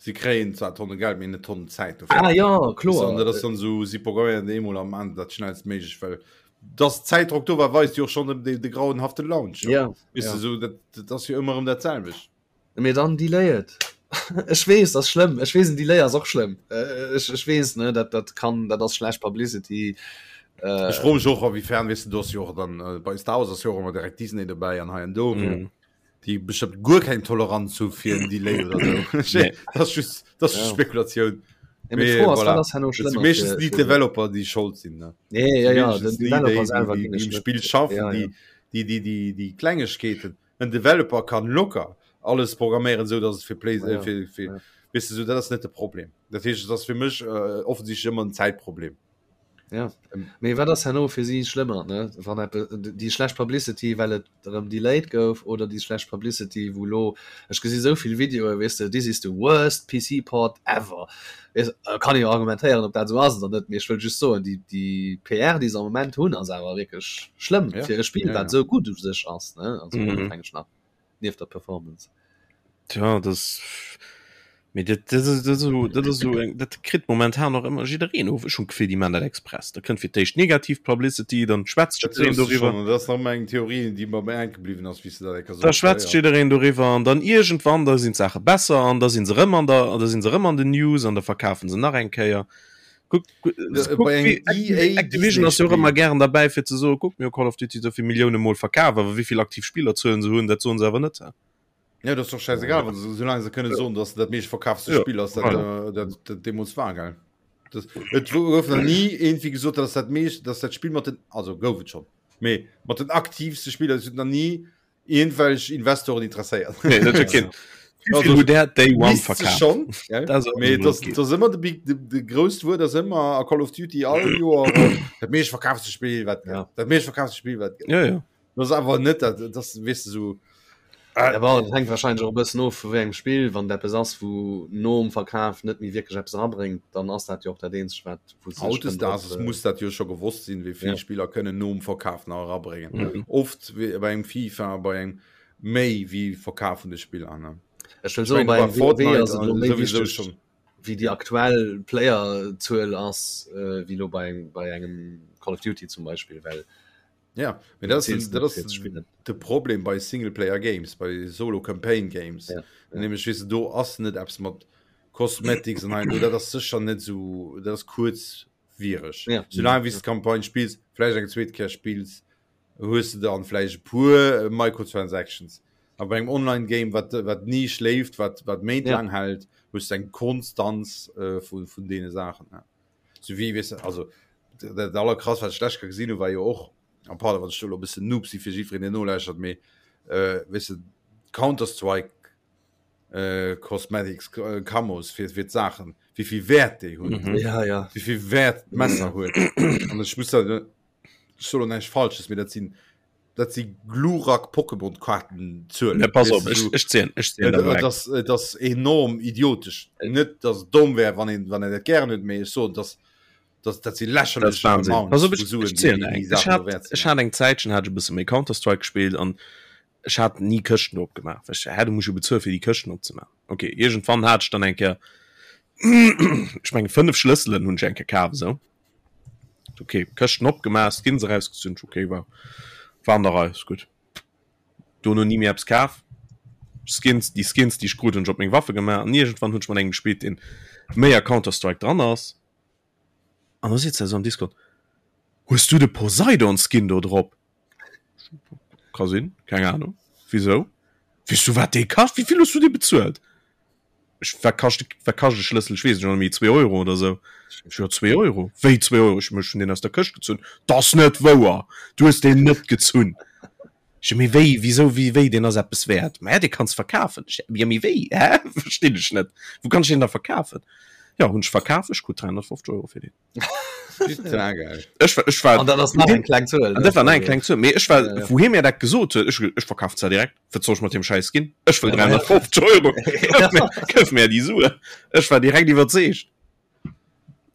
si kréien zwar Tonne Geld, mee net Tonnen Zäit dofir. Ah jo, kloer. An dat ass dann esou, si programméieren dat eemol a maachen dat schnellstméiglech, well dass Zäitdrock do war, weist jo och schonn de, de grauenhafte Launch. Ja, Weess ja. de, sou, dat, dat ass jo ëmmer erëm dat selwecht. Mee dann delay et. Ech weess, dat ass schlëmm. Ech weess, en Delay ass och schlëmm. Ech, ech weess, ne, dat, dat kann, dat ass schlecht Publicity. Äh, Ech froe mech och, a-wiefern, weess de, do ass jo och dann, äh, bei Star Wars ass jo och ëmmer direkt Disney dobäi an hei an do. Mhm. Déi bestëmmt guer keng Toleranz hu fir en Delay oder sou. Nee. Dat ass just, dat ass just Ja. Spekulatioun. Ja, mee Mee d'Fro ass, voilà. wat ass herno Dat si schlëmmer meeschtens fir, déi fir Developer, déi schold sinn, ne? Nee, ja, ja, den Meeschtens déi, Developer déi, déi, selwer déi, ginn déi ech um net. Spill schaffen, Ja, ja. déi, déi, déi, déi, déi Klengegkeeten. En Developer kann locker alles programméieren, sou dass et fir Play, Ja, ja. fir, fir, Ja. weess de, sou dat ass net de Problem. Dat heescht, et ass fir mech äh, offensichtlech ëmmer en Zäitproblem. Ja. Mee wat ass herno fir si schlëmmer, ne? Wann eppe déi schlecht Publicity, well et erëm delayed gouf, oder déi schlecht Publicity, wou elo, ech gesi sou vill Videoe, weess de, this is the worst PC port ever. Weess, kann ee jo argumentéieren, ob dat esou ass oder net, mee ech wëll just soen, déi, déi PR, déi se am Moment hunn, ass awer wierklech schlëmm Ja. fir e Spill, Ja, wat ja. esou gutt u sech ass, ne? Also Mhm. onofhängeg nach nieft der Performance. Tja, das mee dat, dat, dat, dat, esou, dat ass esou eng, dat kritt momentan och ëmmer jiddereen of. Ech hunn d'Gefill, déi man dat express. Da kënnt fir d'éischt negativ Publicity, dann schwätzt Dat jiddereen soos du doriwwer. schon, dat ass nach ëmmer eng Theorie, déi mer bei hänke bliwwen ass, wéi s de dat enker Da soos. schwätzt Ja, ja. jiddereen doriwwer an dann iergendwann, da sinn d'Saache besser an da sinn se rëm an der, da sinn se rëm an den News an da verkafen se nach eng Kéier. Kuck, Äh, kuck, bei engem wéi EA Activision ass jo och Disney-Spill. ëmmer gären derbäi fir ze soen, kuck, mir hu Call of Duty esou vill Millioune mol verkaf, awer wéi vill aktiv Spillerzuelen se hunn, dat soen se awer net. Ja, dat ass doch scheißegal, wann se, solange se kënne soen, dass dat meescht verkaafste Ja, Spill ass, dat, voilà. äh, dat, dat deemools war, gell? Das, et gouf nach nie irgendwie gesot, dass dat meescht, dass dat Spill mat den, also gouf et schon, mee mat den aktivste Spiller, es huet nach nie irgendwelch Investoren interesséiert. Nee, dat huet keen. Wéi Also, vill huet der Day One Misst se verkaaft? schon, gell? Dat ass och Mee emol das, okay. das ass ëmmer de big, de, de grousst Wuert ass ëmmer a Call of Duty all Joer äh, dat meescht verkaafste Spill wat Ja. dat meescht verkaafste Spill wat gëtt. Ja, ja. Das ass awer net dat, das weess de sou. Ja, bon, dat hänkt wahrscheinlech och e bëssen of vu wéi engem Spill. Wann et eppes ass, wou nom Verkaf net méi wierklech eppes erabréngt, dann ass dat jo och dat eenzegt, wat wou se sech kënnen drop Hautdesdaags muss dat jo scho gewosst sinn, wéi vill Ja. Spiller kënnen nom Verkaf nach erabréngen. Mhm. Oft wéi bei engem FIFA, bei engem méi wéi Verkaf vun de Spiller, ne? Ech wëll Ech soen, mengen bei bei engem WoW Fortnite ass et elo méi souwisou wichteg, schon. wéi déi aktuell Playerzuel ass, wéi elo bei engem, bei engem Call of Duty zum Beispill, well Ja, mee dat ass, dat ass de Problem bei Singleplayer Games, bei Solo Campaign Games. Ja, ja. Nämlech weess de, do ass net eppes mat Cosmetics an hei an do, dat ass sécher net esou, dat ass kuerzwiereg. Ja. Soulaang wéi s de d'Campagne spills, vläicht eng zweet Kéier spills, hues de dann vläicht e puer Microtransactions. A bei engem Online-Game, wat, wat ni schléift, wat, wat méintlaang ja. hält, hues de eng Konstanz äh, vun, vun deene Saachen. Ja. Sou wéi, weess de, also dat allerkrass wat ech d'lescht Kéier gesinn hu war jo och, a pardon wann ech do elo e bëssen Noob si fir jiddwereen deen nolauschtert, mee weess de Counter-Strike. äh, Cosmetics äh, Camos fir fir d'Saachen, wéi vill Wäert déi hunn, mhm. ja, ja. wéi vill Wäert d'Messer mhm. huet. An ech muss da, ech soll näischt Falsches, mee dat sinn dat si Glurak Pokémon Karten Zuelen. Ja, pass op, ech, ech ziehen, ech ziehen äh, das, äh, das enorm idiotisch. Net dass domm wär wann een wann en dat gären huet, mee ech soen dass das, dat si lächerlech Wahnsinn. Pass op, ech, ech ziehen eng. Ech hat, ech hat eng Zäitchen hat ech e bësse méi Counter-Strike gespielt an ech hat ni Këschten opgemaach. Well ech, hä, du muss jo bezuelen fir déi Këschten opzemaachen. Okay, iergendwann hat ech dann eng Kéier ech menge 5 Schlësselen hunn ech eng Kéier kaf esou. Okay, Këschten opgemaach, Skins erausgezunn, okay, war, war an der Rei, ist gut. Dono ni méi eppes kaf. Skins, déi Skins, déi ech krut, hunn ech op meng Waffe gemaach an iergendwann hunn ech mat engem gespillt, deen méi a Counter-Strike dran ass. An da seet se esou am Discord, Hues du de Poseidon-Skin do drop? Ka sinn, keng Ahnung. Wisou? Weess du, wat dee kascht? Wéi vill hues du dee bezuelt? Ech, wat kascht, wat kascht e Schlëssel? Ech weess et schon net méi, zwee Euro oder sou. Ech, jo, zwee Euro. Wéi zwee Euro? Ech, ech hunn deen aus der Këscht gezunn. 't ass net wouer! Du hues deen net gezunn! Ech, mee wéi, wisou, wéi, wéi, deen ass eppes wäert? Ma ja, dee kanns verkafen. Ech, jo, mee wéi? Hä? Verstinn ech net. Wou kann ech deen da verkafen? Jo, hunn ech verkaf, ech krut 350 Euro fir deen. Ech war, ech war, An dat ass nach eng kleng Zuel. An dat war nach eng kleng Zuel. Mee ech war, wou hie mir dat gesot huet, ech hu gesot, ech verkafen zwar direkt, wat soll ech mat deem Schäiss ginn? Ech wëll 350 Euro, gëff mir, gëff mir déi Suen. Ech war direkt iwwerzeegt.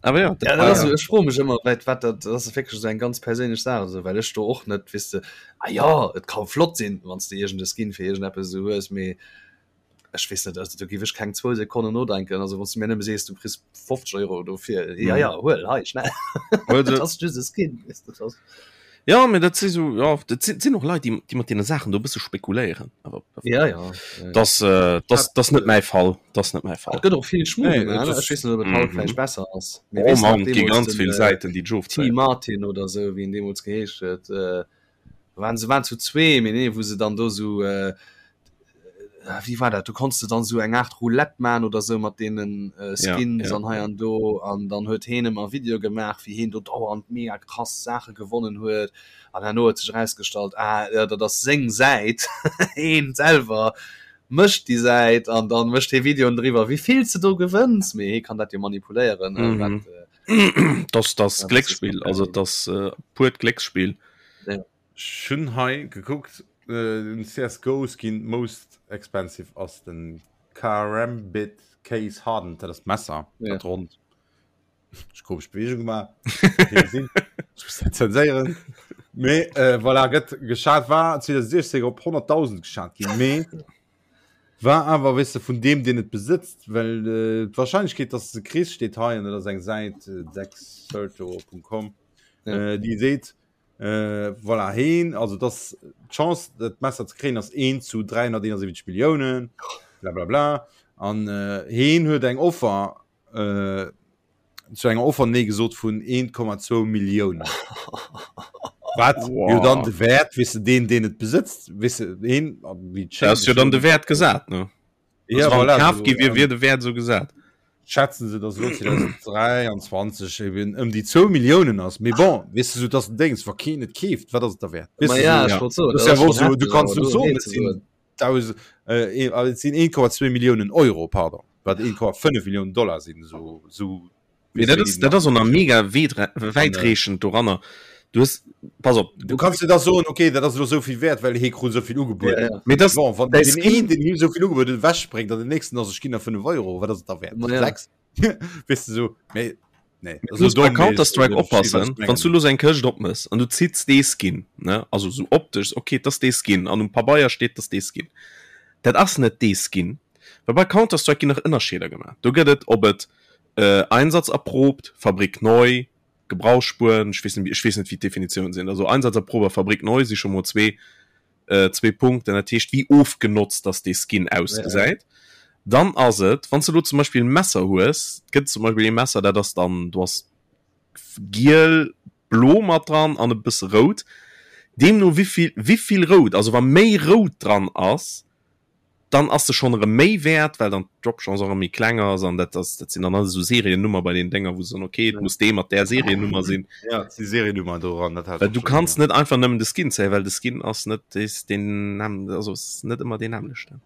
Awer jo, dat war. Ech froe mech ëmmer, wat, wat dat, dat ass wierklech esou eng ganz perséinlech Saach, esou, well ech do och net, weess de, ah jo, et ka flott sinn, wann s de iergend e Skin fir iergendeppes esou hues, mee Ech weess net, also do giff ech keng zwou Sekonnen nodenken. Also wann s du mir nëmme sees, du kriss 50 Euro dofir, ja ja, huel, hei, schnell. Also, ass just e Skin, weess de, das. Ja, mee dat si sou, ja, dat sinn, sinn och Leit, déi, déi mat deene Saachen do e bësse spekuléieren. Awer Ja, ja, ja, ja. das, äh, das, das net mäi Fall, das net mäi Fall. Et gëtt och vill Schmuh Nee, gemaach, et ne? ass- Ech weess net, ob et haut Mhm. vläicht besser ass. Mee Oh weess nach Mann, et gi deemools ganz den, vill äh, Säiten, déi T. d'Ofzéien. Martin oder sou, wéi en deemools geheescht huet, äh, waren se waren zu zwee mee nee wou se dann do sou äh, wéi war dat du konns de dann sou eng Art Roulette man oder sou mat deenen äh, Skins ja, ja. an hei an do an dann huet heen ëmmer Video gemaach wéi heen do dauernd mega krass Saache gewonnen huet an herno huet sech erausgestallt ah ja, dat ass seng Säit heen selwer mécht déi Säit an dann mécht hee Videoen driwwer wéi vill s de do gewënns mee hee kann dat jo manipuléieren äh, mhm. wat, äh, Das das Ja, das ist Glécksspill, also geil. das äh, purt Glécksspill. Ja. Ech hunn hei gekuckt, den CSGO Skin most expensive ass den Karambit Case Hardened, dat ass d'Messer, dat ronnt. Ech komesch Bewegung gemaach, gesinn, ech muss dat zenséieren. Mee voilà, gëtt geschat, war 2016 op 100.000 geschat ginn, mee war awer, weess de, vun deem, deen et besëtzt, well d'Warscheinlechkeet, dass de se kriss, steet hei, an dat ass eng Säit, dexerto.com, déi seet, Äh, voilà, heen, also das d'Chance dat Messer ze kréien ass 1 zu 371 Milliounen, bla bla bla. An äh, heen huet eng Offer äh, zu enger Offer nee gesot vun 1,2 Milliounen. Wat wow. jo dann de Wert, weess de, deen, deen et besëtzt, weess de, heen, wéi d'Schéin. Dat ass jo dann de Wert gesat, ne? Ja, also, voilà, kaf so, gi wier, wier de Wäert so gesat. Schätzen se, dass elo 2023 eben ëm déi 2 Milliounen ass. Mee bon, weess de, sou dass den Déngs, wa keen et keeft, wat ass et da wäert? Ma Weess de, ja, sou, ech ja. wollt soen, das dat ist ja ass wohl schon so, du heftig, kannst awer net do soen, nee et ze sinn soen. 1000, äh, äh, et sinn 1,2 Milliounen Euro, pardon, wat 1,5 Milliounen Dollar sinn, sou, sou Mee dat ass, dat ass och nach mega wäitreechend doranner. Du hues, pass op. Du kanns dir da soen, okay, dat ass elo esou vill wäert, well hee krut esou vill ugebueden. Ja, ja. Mee das, Bon, wann däi den Skin, een, den him esou vill ugebueden huet, ewechspréngt an den nächsten ass, ech ginn der 5 Euro, wat ass et da wäert? Ma ja. 6? Weess de sou, mee nee, du esou muss bei domm, mee ech Counter-Strike versti wat oppassen, ech wann du mengen. lo sou eng Këscht opmëss an du zitts dee Skin, ne, also sou optesch, okay, 't ass dee Skin an um Pabeier steet, 't ass dee Skin. Dat ass net dee Skin, well bei Counter-Strike ginn nach Ënnerscheeder gemaach. Do gëtt et, ob et Einsatz erprobt, Fabrik neu, Gebrauchsspuren, ech weess net, ech weess net wéi d'Definitiounen sinn, also Einsatz erprobt a Fabrik neu si scho mol zwee, zwee Punkten, dat heescht wéi ofgenotzt dass dee Skin ausgesäit. Dann ass et, wann s de elo zum Beispill e Messer hues, et gëtt zum Beispill ee Messer, dat ass dann, do ass giel, blo mat dran an e bësse rout, deemno wéivill, wéivill rout, also wa méi rout dran ass, dann ass se schonn erëm méi wäert, well dann d'Drop-Chance och erëm méi kleng ass an dat ass, dat sinn dann alles esou Seriennummer bei den Dénger, wou se soen, okay, et muss dee mat där Seriennummer sinn. Ja, et si Seriennummer doran, dat hat Well ech du och schonn, kanns ja. net einfach nëmmen de Skin zéien, well de Skin ass net dees deen näm-, also ass net ëmmer deen nämmlechten.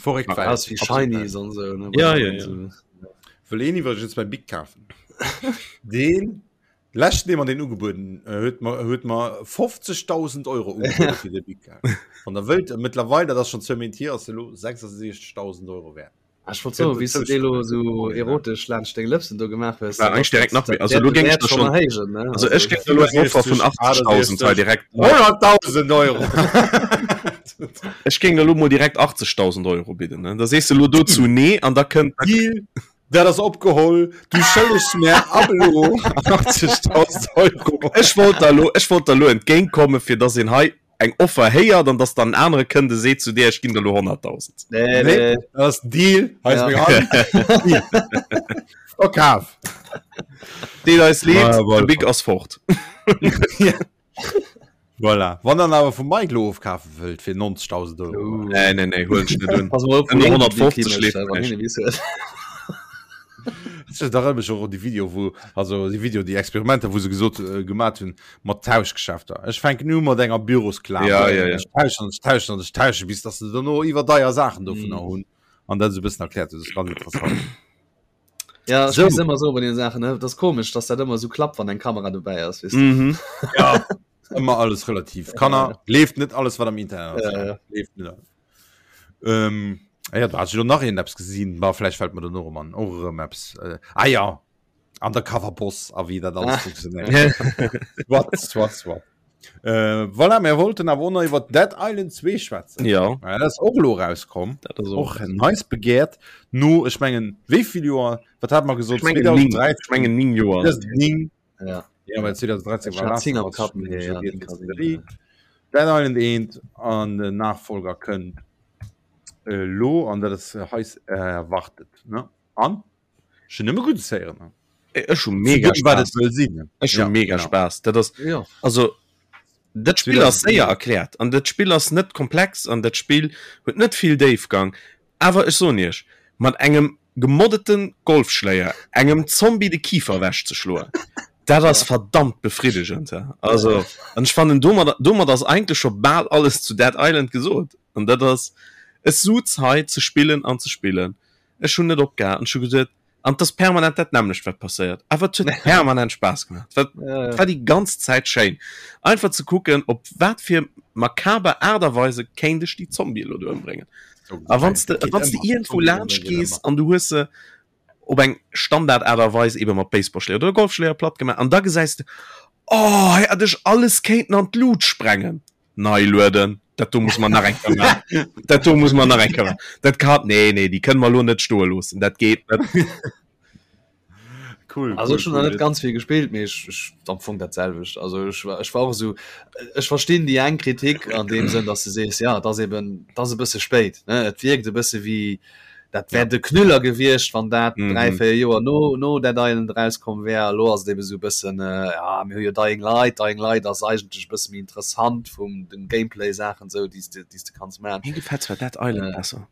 Verréckt Welt. Ass wéi Shinies an esou, ne? Ja, ja, ja. Wëll een iwwregens mäi Bic kafen? Deen leschten, dee mer deen ugebueden huet, mer huet mer 50.000 Euro ugebueden fir de Bic. Wann der wëllt, mëttlerweil, dat ass schonn zwou Méint hier, ass e lo 66.000 Euro wäert. Ah, ech wollt soen, wéi s du dee lo sou erotesch laanscht deng Lëpsen do gemaach hues, War eigentlich direkt nach méi. Also lo géing ech der schon erhéijen, ne? Also ech géing elo eng Offer vun 80.000 hei direkt 100.000 Euro! Ech géing elo mol direkt 80.000 Euro bidden, ne? Da sees de lo dozou nee an da kënnt. Deal, dat ass opgeholl, du schëllegs mär ab elo 80.000 Euro. Ech wollt der elo, ech wollt der elo entgéintkommen, fir dass een hei eng Offer héiert an dass dann en anere kënnt e seet zu dir, ech ginn der elo 100.000. Nee, Nee, nee. dat ass Deal, hei ass Ja. meng Hand. Deal. Verkaf. Deet eis leed, Ah, de Bic ass fort. Voilà. Wann dann awer vum Mike lo ofkafe wëllt fir 90.000 Euro. Uh. Nee, nee, nee, huelen ech net un. Pass mol op, Ënner wou hien de Bic 150 himécht, leeft wann näischt. hien e Bic huet. Ech erënnere mech och un déi Video, wou, also déi Video, déi Experimenter, wou se gesot äh, gemat hunn mat Tauschgeschäfter. Ech fänken u mat enger Bürosklamer. Ja, ja, ja. Ech tauschen an ech tauschen an ech tauschen, bis dass se dono iwwer deier Saachen dovunner Mm. hunn. An dat esou e bëssen erkläert. Dat ass ganz interessant. Ja, ech So. muss ëmmer soen bei den Saachen, ne, dat ass komesch, dass dat ëmmer esou klappt, wann eng Kamera dobäi ass, weess du. Mhm. Ja, ëmmer alles relativ. Kanner, gleeft net alles, wat am Internet ass. Ja, ja. Gleeft net alles. Ähm, ah ja, da hat ech lo nach een eppes gesinn, ma vläicht fält mer dono erëm an, och erëm eppes. Äh, ah ja, Undercover Boss a wéi dat alles Ah. funktionéiert. Soit, soit, soit. Äh, voilà, mir wollten awer och nach iwwer Dead Island 2 schwätzen. Ja, Ja, dat ass och elo rauskomm. dat ass och. Och nice begehrt. No, ech mengen, wéi vill Joer, wat hat mer gesot? Ech mengen 9, ech mengen 9 Joer. 2009. Ja. Ja, well 2013 Ech war hat Last 10 of am Us Kapp, schon mee ja, schon 10 kann sinn, Serie. ja. Dead Island 1 an den Nachfolger kënnt elo an dat ass heiß erwartet ne an ech hunn nëmme Guddes héieren ne. Ech hu mega Zu dem, wat Spaass. et soll sinn. Ech hu Ja, mega genau. Spaass. Dat ass Ja. also dat Spill ass séier erkläert an dat Spill ass net komplex an dat Spill huet net vill Déifgang. Awer ech soen iech, mat engem gemoddete Golfschléier engem Zombie de Kifer ewech ze schloen, dat ass verdammt befriddegend. Also an ech fannen domadder domat ass eigentlech scho bal alles zu Dead Island gesot. An dat ass ech suz hei ze spillen an ze spillen. Ech hunn net opgehal an ech hu geduet, An et ass permanent dat nämmlecht wat passéiert, awer et huet permanent Spaass gemaach. Et war, et war déi ganz Zäit schéin einfach ze kucken, op wat fir makaber Aart a Weise kéint ech déi Zombie elo do ëmbréngen. A wann s de, wann s de iergendwou laanscht gees an du hues se op eng Standard Aart a Weis ebe mat Baseballschléier oder Golfschléier platt gemaach an da gesäis de, oh hei hätt ech alles kéinten an d'Lut sprengen. Nei lueden, dat do muss mer nach eng Kéier maachen. Dat do muss mer nach eng Kéier maachen. Dat kann, nee, nee, déi kënne mer elo net stoe loossen. Dat geet net. Cool, Also cool, ech hunn nach cool. net ganz vill gespillt, mee ech, ech am Fong dat selwecht. Also ech war, ech war och esou, ech verstinn déi eng Kritik an deem Sënn, dass du sees, ja, et ass eben, et ass e bësse spéit, ne? Et wierkt e bësse wéi, dat wär de Knüller gewiescht, wann dat 3, 4 Joer no, no Dead Island erauskomm wär. Elo ass et ebe sou e bëssen, ja, mir hu jo Dying Light, Dying Light ass eigentlech e bësse méi interessant vum den Gameplay-Saachen esou, déi s de, déi s de kanns maachen. Mir gefält zwar Dead Island besser.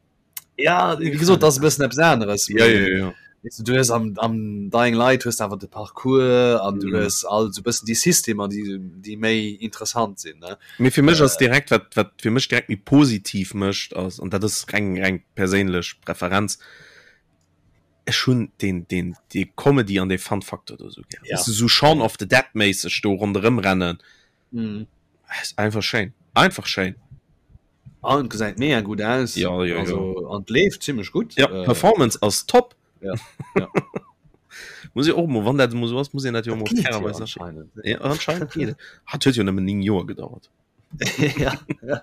Ja, wéi gesot, dat ass e bëssen eppes aneres. Ja, ja, ja. Weess du, du hues am, am Dying Light hues de awer de Parcours an du Mhm. hues all sou bëssen déi Systemer, déi, déi méi interessant sinn, ne. Mee fir mech ass direkt, wat, wat fir mech direkt méi positiv mécht, ass, an dat ass reng, reng perséinlech Preferenz, ech hunn deen, deen, dee Comedy an dee Fun-Faktor do esou gär. Ja. Weess du, sou Shaun of the Dead-méisseg do ronderëm rennen. Mhm. Ass einfach schéin. Einfach schéin. An et gesäit mega gutt aus. Ja, ja, ja. Also, an et leeft zimmlech gutt. Ja, Äh, Performance ass top. Ja, ja. Muss ich och mol, wann dat emol sou ass, muss een dat jo mol Geet jo fairerweis anscheinend. Ja, anscheinend geet et. Hat huet jo nëmmen 9 Joer gedauert. ja, ja.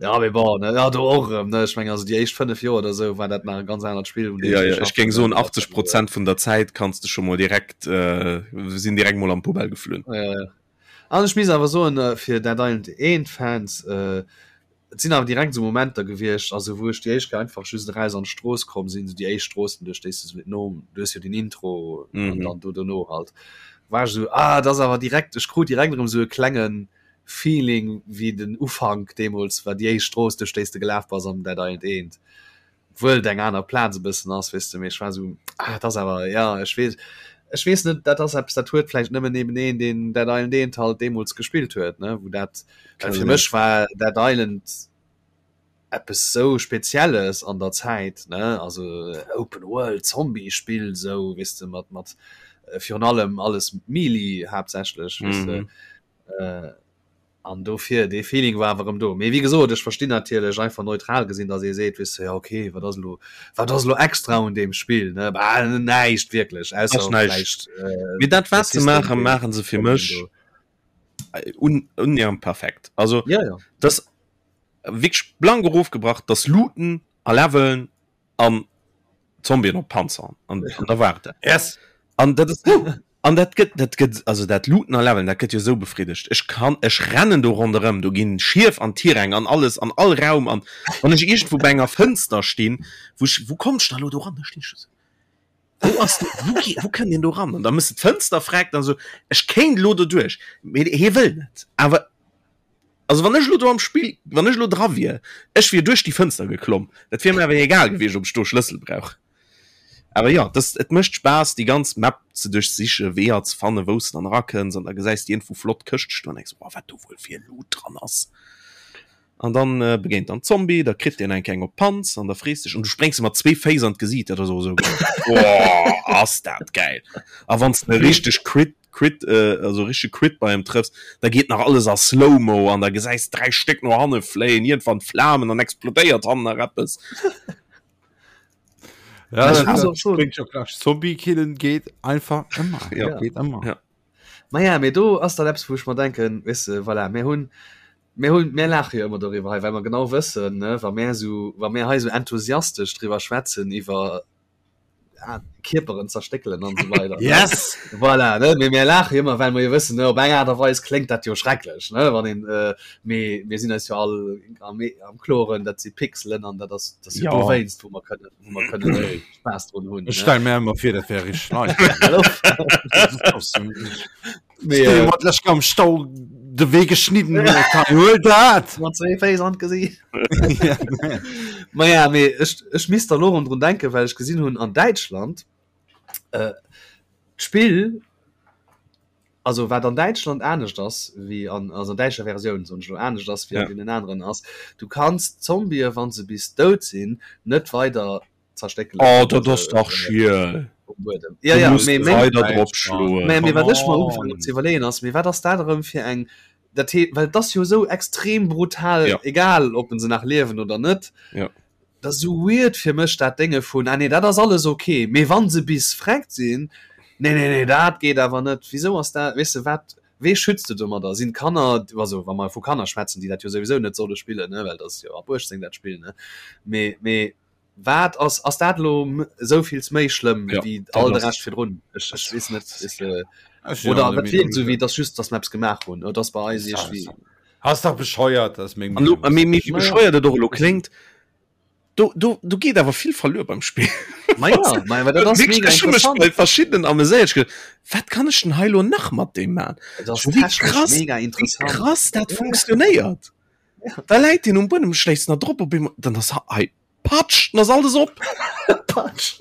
ja, mee bon, ne, ja, do och erëm, ne, ech meng, also déi éischt 5 Joer oder sou war dat nach e ganz anert Spill, un deem Ja, se ja, ech geschafft géing hunn, soen dat 80 Prozent vun der Zäit kanns de scho mol direkt, äh, sinn direkt mol an d'Poubelle geflunn. Ja, ja. An ech misst awer soen, fir Dead Island 1 Fans, et sinn awer direkt esou Momenter gewiescht, also wou ech déi éischt Kéier einfach just eraus an d'Strooss komm sinn, esou déi éischt Stroossen, duerch déi s de no, du hues jo den Intro an dann do dono halt, war ech esou, ah, et ass awer direkt, ech krut direkt erëm esou e klenge Feeling wéi den Ufank deemools war, déi éischt Strooss, duerch déi s de gelaf bass am Dead Island 1. Obwuel et eng aner Plaz e bëssen ass, weess de, mee ech war esou, ah, et ass awer, ja, ech weess, ech weess net, dat ass eppes, dat huet vläicht nëmmen eben een, deen Dead Island 1 halt deemools gespillt huet, ne, wou dat, well fir mech war Dead Island. Eppes sou Spezielles an der Zäit, ne, also Open World Zombie Spill sou, weess de, mat mat virun allem alles Melee haaptsächlech, weess de. An dofir, dee Feeling war awer erëm do. Mee wéi gesot, ech verstinn natierlech einfach neutral gesinn, datt ee seet, weess de, jo okay, wat ass elo, wat ass elo extra un deem Spill, ne? Bah, näischt wierklech, ausser Ass näischt. vläicht äh, Mee dat de wat se System, maachen, deen maachen se fir Zombien mech do. un unnähernd perfekt. Also Ja, ja. das wierklech blank erofgebrach, das Looten a Leveln an Zombien op Panzern an, an da war et dat. Yes. An dat ist, an dat gëtt, dat gëtt, also dat Looten a Leveln, dat gëtt jo sou befriddegt. Ech kann, ech rennen do ronderëm, do ginn Schief an Tiräng an alles, an all Raum an wann ech iergendwou bei enger Fënster stinn, wou ech, wou komm ech da lo do ran? Da stinn ech do sou, wou ass do, wou ge, wou kënnt een do ran? An da mëss de d'Fënster freckt an sou, ech kéint lo doduerch, mee hie wëll net. Awer Also wann ech elo do am Spill, wann ech elo dra wier, ech wier duerch déi Fënster geklomm. Dat wier mir awer egal gewiescht, ob ech do Schlëssel brauch. Awer jo, das, et mécht Spaass, déi ganz Map ze duerchsichen, Weeër ze fannen, wou s de dann erakënns an da gesäis de iergendwou flott Këschte stoen an denks, oh, wat do wuel fir Loot dran ass. An dann äh, begéint dann Zombie, da kritt deen eng keng op d'Panz an da frees dech an du spréngs em mat zwee Féiss an d'Gesiit, dat ass och esou geil. Oh, ass dat gäil! A wann s de e richteg Crit Crit, äh, also richtige Crit bei em trëffs, da geet nach alles a Slow-Mo an da gesäis 3 Stéck no hanne fléien, iergendwann Flamen an explodéiert hannen nach eppes. Ja, Ich dat, muss dat auch schon. klingt schon klar. Zombie killen geht einfach immer. Ja. Ja. Geht immer. Ja. Maja, mee do ass dann eppes, wou ech mer denken, weess de, voilà, mir hunn, mir hunn, mir laache jo ëmmer doriwwer hei, well mer genau wëssen, ne, wa mär esou, wa mär hei esou enthusiastesch driwwer schwätzen iwwer ah, Kierperen zerstéckelen an so weiter. Yes! Voilà, ne? Mee mir laache jo ëmmer, well mer jo wëssen, ne, op eng Aart a Weis kléngt dat jo schrecklech, ne, wann een, äh, mee mir sinn eis jo all am, am Kloren, dat si Pixelen an dat ass, dat ass jo Ja. dowéinst, wou mer kënnen, wou mer kënnen Spaass drun hunn. Ech Ne? stell mir ëmmer vir, dat wär richteg nice. Hallo? Mee, äh, Mat lech am Stau de Wee geschnidden huet, hei, huel dat! mat zwee Féiss an d'Gesiicht. Ja. Ma ja, mee ech, ech misst da lo rëm drun denken, well ech gesinn hunn an Däitschland, äh, d'Spill, also wat an Däitschland anescht ass wéi an, also an däitscher Versioun soen ech elo, anescht ass wéi an Ja. deenen aneren ass, du kanns d'Zombië wa se bis dout sinn, net weider zerstéckelen. Oh, dat ass dach schiel. Um Buedem. Ja, ja, Du mee, muss meng, weider drop schloen. mee, mee wat ech mer Come ugefaangen on. hunn ze iwwerleeën ass, mee wat ass dat erëm fir eng, dat hee, well et ass jo esou extrem brutal, Ja. egal ob en se nach liewen oder net. Ja. Dat ass esou weird fir mech dat Dénge vun, ah nee, dat ass alles ok, mee wann se bis vreckt sinn, nee, nee, nee, dat geet awer net. Wisou ass dat, weess de, wat, wee schützt de domadder? Sinn d'Kanner, also wa mer vu Kanner schwätzen, déi dat jo souwisou net solle spillen, ne, well dat ass jo ab 18 dat Spill, ne, mee, mee Wat ass ass dat elo esou vills méi schlëmm Ja, wéi dat all de ass- Rescht virdrun? Ech ech weess net is, äh, Ech sinn oder awer dat der wierkt esou Meenung, wéi dass just dass mer eppes gemaach hunn oder dass bei eis iergendwéi Ass dach bescheuert, ass meng An lo, Meenung. mee, mee wéi Ma ja. bescheuert et och elo kléngt, do, do, do geet awer vill verluer beim Spill. Ma ja, ma dat ass Wierklech, mega ech hu mech interessant. bei verschiddenen ameséiert. Ech geduecht, wat kann ech denn hei elo nach mat deem man? Et ass Wéi technesch krass, mega wéi interessant. krass dat funktionéiert. Da läit deen um Buedem, schléisst nach drop, op eemol, dann ass hei Patsch, dann ass alles op. Patsch.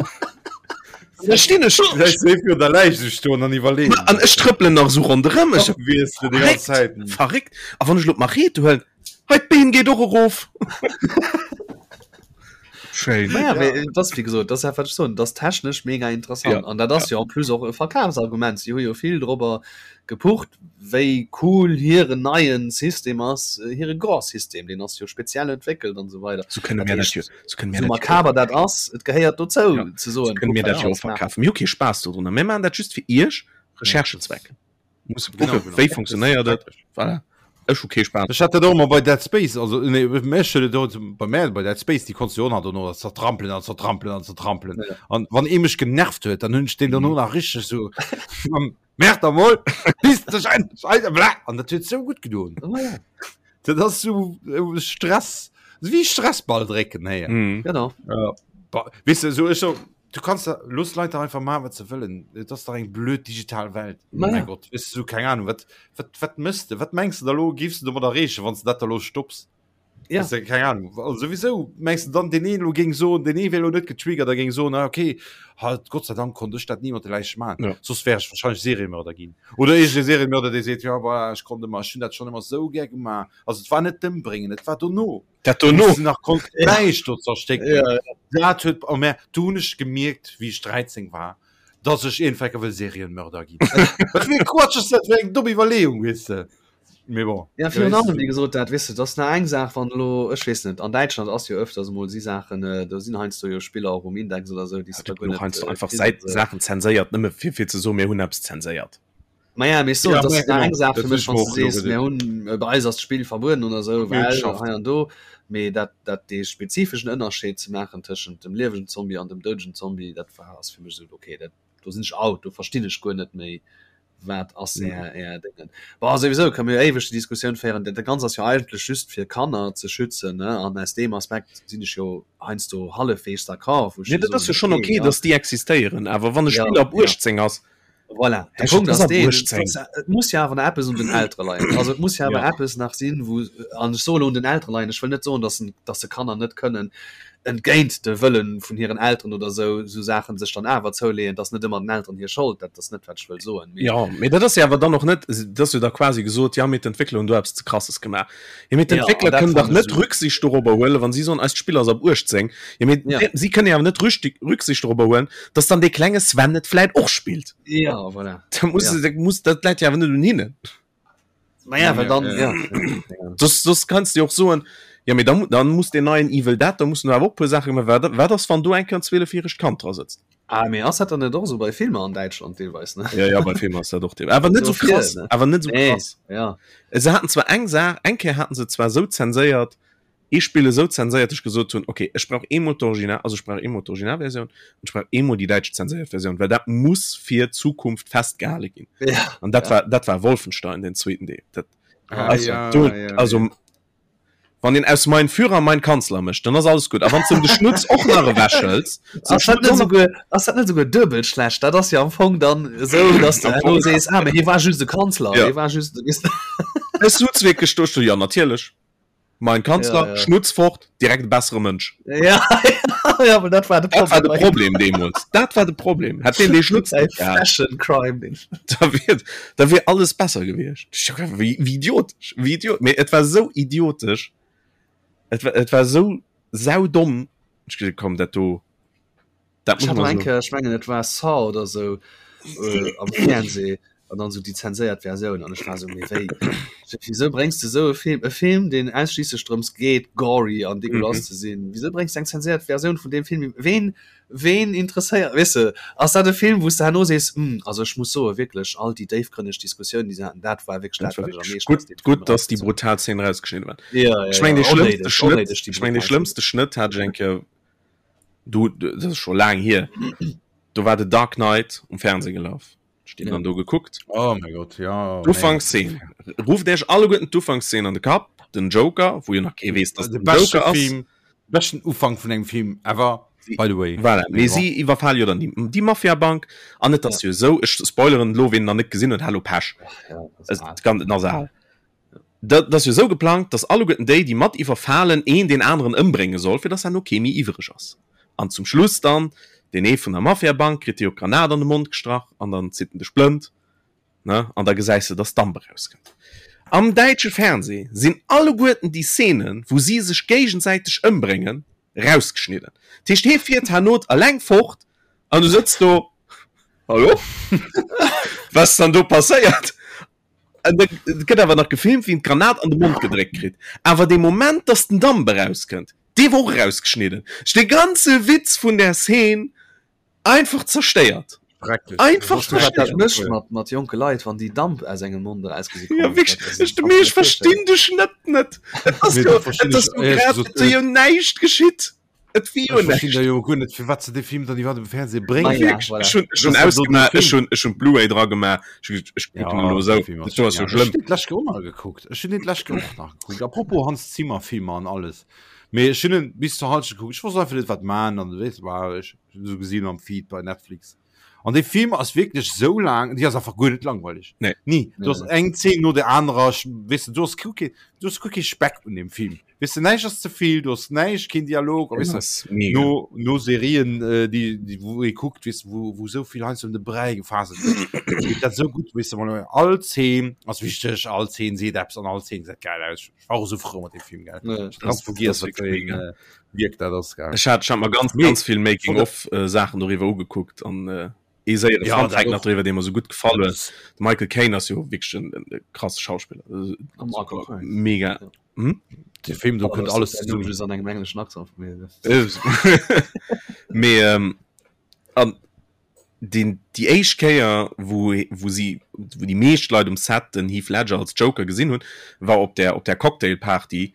Da stinn ech Vielleicht seef jo der Läich sech stoen an iwwerleeën. an ech trëppelen nach esou ronderëm. Ech Wies de déi ganz Zäit. verréckt, verréckt. A wann ech elo d'Machete huelen, hei d'Been geet och erof. Schéin. Naja, mee et ass wéi gesot, dat ass dat wat ech soen, dat ass technesch mega interessant Ja, an dat ass jo en plus och e Verkafsargument. Si hu jo vill dorobber gepucht, wéi cool hiren neien System ass, hire Gore-System, deen ass jo speziell entwéckelt an esou weider. Sou kënne Dat mir dat heescht, jo, sou kënne mir sou dat jo makaber dat ass, et gehéiert dozou Ja, ze sou soen, kënne kuck mir wat dat mir jo och alles maachen. verkafen. Mir hu kee Spaass dodrunner, mir maachen dat just fir Iech, Recherchezwecken. Musse Genau, kucken, genau. wéi funktionéiert et. Voilà. Ech hu kee Spaass. Ech hat dat och emmer bei Dead Space, also nee, mech huet et och bei mär bei Dead Space, déi konntst du jo och nach dono zertrampelen an zertrampelen an zertrampelen. Ja. An wann ee mech genervt huet, dann hunn ech deen dono nach richteg sou Merk der mol, piss dech endlech Alter, bla! An dat huet sou gutt gedoen. Oh ja. Dat ass sou äh, Stress, wéi Stressball drécken, hey. Mhm. Genau. Ja. Ba, weißt du, so ech so, du kannst da, looss Leit da einfach maachen, wat se wëllen. Et ass dach eng blöd digital Welt. Ma Mein ja. Gott, weißt du, so, keng Ahnung, wat, wat, wat mëss de? Wat mengs du da lo, géifs du domat erreechen, wann s du dat da lo stopps? Ja. Weißt du, keine Ahnung. Also sowieso mengst du dann den een lo géing soen, den ee wär lo net getriggert a géing soen, ah, okay, halt Gott sei Dank konnt ech dat ni mat de Läiche maachen. Ja. Soss wär ech wahrscheinlech Seriemörder ginn. Oder iergend e Seriemörder, dee seet, ja voilà, ech konnt ëmmer, ech hunn dat schonn ëmmer sou gär gemaach. Also et war net d'Ëmbréngen, et war dono. Dat dono. Wou s du nach konns d'Läich do zerstécken. Ja, ja. Dat huet, oh mä do hunn ech gemierkt, wéi ech 13 war, dass ech iergendwecke wëll Serienmörder ginn. Wat fir e Quatsch ass dat fir eng domm Iwwerleeung, weess de. Mee bon. Ja, virun allem, wéi gesot, dat, weess de, dat ass nach eng Saach, wann elo, ech weess net, an Däitschland ass jo öfters emol si Saachen, do sinn heiansdo jo Spiller och um Index oder esou, déi s de da guer net kriss. Einfach Säit, Saachen zenséiert, nëmme fir, fir ze soen, mir hunn eppes zenséiert. Maja, mee ech soen, Ja, dat maja, ass nach genau. eng Saach Dat fir hunn mech, ech wann mer s och de elo sees, mir geduecht. hunn, bei eis ass d'Spill verbueden oder esou, Mir hunn well geschafft. hei an do, mee dat, dat dee spezifeschen Ënnerscheed ze maachen tëschent dem liewegen Zombie an dem doudegen Zombie, dat war, ass fir mech esou, okay, dat, do sinn ech out, do verstinn ech guer net méi, wat ass är är Déngen. Bon, souwisou kënne mir jo éiweg déi Diskussioun féieren, dat Ganzt ass jo eigentlech just fir Kanner ze schützen, ne, an aus deem Aspekt sinn ech jo heiansdo hallefweegs d'accord, wou ech Nee, jo dat ass jo soen, schonn okay, okay, ja. datt déi existéieren, awer wann e Ja, Spill ab ja. 18 ass, Voilà, de Hä, Punkt dat ass ass ab deen, 18. et muss jo awer nach eppes un den Eltere leien. Also et muss jo awer Ja. eppes nach sinn, wou, an ech soe lo un den Eltere leien, ech wëll net soen, datt en, datt se Kanner net kënnen entgéint de Wëlle vun hiren Elteren oder esou, esou Saachen sech dann awer zouleeën, dat ass net ëmmer den Elteren hir Schold, dat ass net wat ech wëll soen, mee. Jo, mee dat ass jo awer dann och net, dat ass jo da quasi gesot, jo mee d'Entwéckler hunn do eppes ze Krasses gemaach. Jo mee Ja, an d'Entwéckler dat kënnen dach fannen ech net esou. Rücksicht dorobber huelen, wa si soen, eist Spill ass ab 18. Jo mee Ja. si kënnen jo awer net Rücksicht dorobber huelen, datt dann dee klenge Sven et vläit och spillt. Ja, voilà. Da muss, Ja. da muss, dat läit jo awer net un hinnen. Naja, well dann, Ja, ja. ja. Soss, soss kanns du jo och soen, ja mee dann, dann muss deen neien Evil Dead, da mussen awer och puer Saache gemaach werden. Wat ass, wann do eng Kéier en 12-järegt Kand dra sëtzt? Ah, mee ass dat dann net och esou bei Filmer an Däitschland deelweis, ne? Ja, ja, bei Filmer ass dat och deelweis. Awer net So esou krass, viel, ne? awer net esou Nee, krass. ja. Se haten zwar eng Saach, eng Kéier haten se zwar esou zenséiert, ee Spill esou zenséiert, dass ech gesot hunn, okay, ech brauch eemol d'Original, also ech brauch eemol d'Originalversioun an ech brauch eemol déi däitsch zenséiert Versioun, well dat muss fir d'Zukunft festgehale ginn. Ja, An dat ja. war, dat war Wolfenstein, den zweeten Deel. Dat, Ah, also, ja, do, ja, also ja. wann een aus Mein Führer mein Kanzler mécht, dann ass alles gutt. A wann s de em de Schnutz och nach ewechhëls, zum Ass dat Schnutz net och nach souguer, ass dat net souguer duebel schlecht? Dat ass jo am Fong dann esou, dass du Am herno Fong. sees, ah, mee hie war just e Kanzler, Ja. hie war just, weess de. Ech sutz wierklech do, ech so, ja, natierlech. Mein Kanzler, Ja, ja. Schnutz fort, direkt e bessere Mënsch. Ja, ja, aber dat war de Dat war de Problem. Problem deemools. Dat war de Problem. Hätt deen dee Schnutz Ey, net gehat, Fashion Crime, den. da wier, da wier alles besser gewiescht. Ich hab gedacht, Wéi, wéi idiotesch, wéi idiot. Mee et war sou idiotesch. Et war, et war sou saudomm. Ech gesot, komm, dat do, Dat Ech muss hat man eng so. Kéier, ech mengen et war Saw oder sou äh, am Fernseh an dann sou déi zenséiert Versioun an ech war sou, mee wéi, wieso bréngs de sou e Film, e Film deen ausschliisslech drëms geet gory an dégueulasse Mhm. ze sinn, wieso bréngs de eng zenséiert Versioun vun deem Film, ween, ween interesséiert, weess de, ass dat e Film wou s de herno sees, hm, also ech muss soe wierklech all déi déifgrënneg Diskussiounen déi se haten, dat war wierklech Dat dat war wat ech am wirklich meeschten aus gutt, deem Film gutt, dass déi erausgezogen brutal Szenen rausgeschnidden waren. Ja, ja, Ech meng, ja, dee schlëmmste onnéideg, Schnëtt, onnéideg déi ech meng, dee brutal Szenen. schlëmmste Schnëtt hat ech eng Kéier Du, dat ass scho laang hier, do war The Dark Knight um Fernseh gelaf. Ech den Ja. dann do gekuckt. Oh mein Gott, ja. nee. D'Ufankszeen. Rufft Iech alleguerten d'Ufankszeen an de Kapp, den Joker, wou jo nach kee weess, dass De den beschte Joker ass. Film, beschten Ufank vun engem Film ever, by the way. Voilà, mee Mee bon. si iwwerfale jo dann déi, déi Mafia-Bank an et ass jo esou, ech spoileren elo, ween en nach net gesinn huet, hallo Pech, Ach ja, das es ist al. kann, en ass al. Dat ass jo esou geplangt, datt alleguerten déi, déi mat iwwerfalen, een deen aneren ëmbrénge soll, fir datt herno kee méi iwwreg ass. An zum Schluss dann, deen ee vun der Mafiabank kritt jo d'Granat an de Mond gestrach an dann zitt en de Splënt, ne, an da gesäis de, datt Damp erauskënnt. Am däitsche Fernseh sinn alleguerten déi Szenen, wou si sech géigensäiteg ëmbréngen, rausgeschnidden. Dat heescht, hie fiert herno eleng fort an du sëtz do, Hallo? Wat ass dann do passéiert? An da gëtt awer nach gefilmt, wéi en d'Granat an de Mond gedréckt kritt. Awer dee Moment, dass den Damp erauskënnt, dee wor och erausgeschnidden. Ech dee ganze Witz vun där Szene einfach zerstéiert. Schrecklech. Einfach Weess du, wat dat zerstéiert. mécht mat, mat jonke Leit, wann déi Damp aus engem Mond erausgesi Ja, kommen? wierklech, Dat ass, ech, kannst mee du ech dir virstellen. verstinn de Schnëtt net. Et ass Nee, jo, dat verstinn et ass ech jo éierlech grad, gesot et ass jo näischt geschitt. Et wier jo Ech verstinn näischt. da jo guer net, firwat se dee Film dann iwwerhaapt um Fernseh Ma bréngen. ja, Wierklech, voilà. ech hunn, ech hunn Dat ass dann do den ausgemaach, ech Film. hunn, ech hunn d'Blu-ray dra gemaach, ech hu gesot, ech kucken Ja, elo dee esou, Film ass dat do ass jo genial. Ech schlëmm. hunn deen d'lescht Kéier och nach gekuckt. Ech hunn deen d'lescht Kéier och nach gekuckt. Apropos Hans Zimmer Filmer an alles. Mee ech hunn en bis zur Halschent gekuckt. Ech wosst einfach net, wat man an weess war ech esou gesinn am Feed bei Netflix. An dee Film ass wierklech esou laang, déi ass einfach guer net langweileg. Nee. Ni. Du Nee, ass nee. eng Zeen no der anerer, weess de, du ass guer kee, du ass guer kee Speck un deem Film. Weess de, näischt ass ze vill, du hues näischt, keen Dialog, a weess de, no, no Serien, äh, déi, déi, wou ee kuckt, weess de, wou, wou esou vill heiansdo ëm de Bräi gefaselt gëtt, geet dat esou gutt, weess de, wann all Zeen ass wichteg, all Zeen seet eppes an all Zeen gesäit geil aus. Ech war och esou frou mat deem Film, gell. Ja, Ich ganz vergiess, wat fir een äh, Wierk dat ass, gell. Ech hat, ech hat mer ganz, Mee, ganz vill Making-of-Saachen doriwwer ugekuckt an äh, ee séiere Ja, Fun dat Fact nach och. doriwwer, dee mer esou gutt gefall huet. De Michael Caine ass jo wierklech en, en krasse Schauspiller. A Michael Caine. Mega. Ja. Hm? De Film, do kënnt alles zesummen. zesummen. Just an engem engleschen Accent vun mir. Mee ähm, an den, déi éischt Kéier, wou, wou si, wou déi meescht Leit um Set den Heath Ledger als Joker gesinn hunn, war op der, op der Cocktailparty,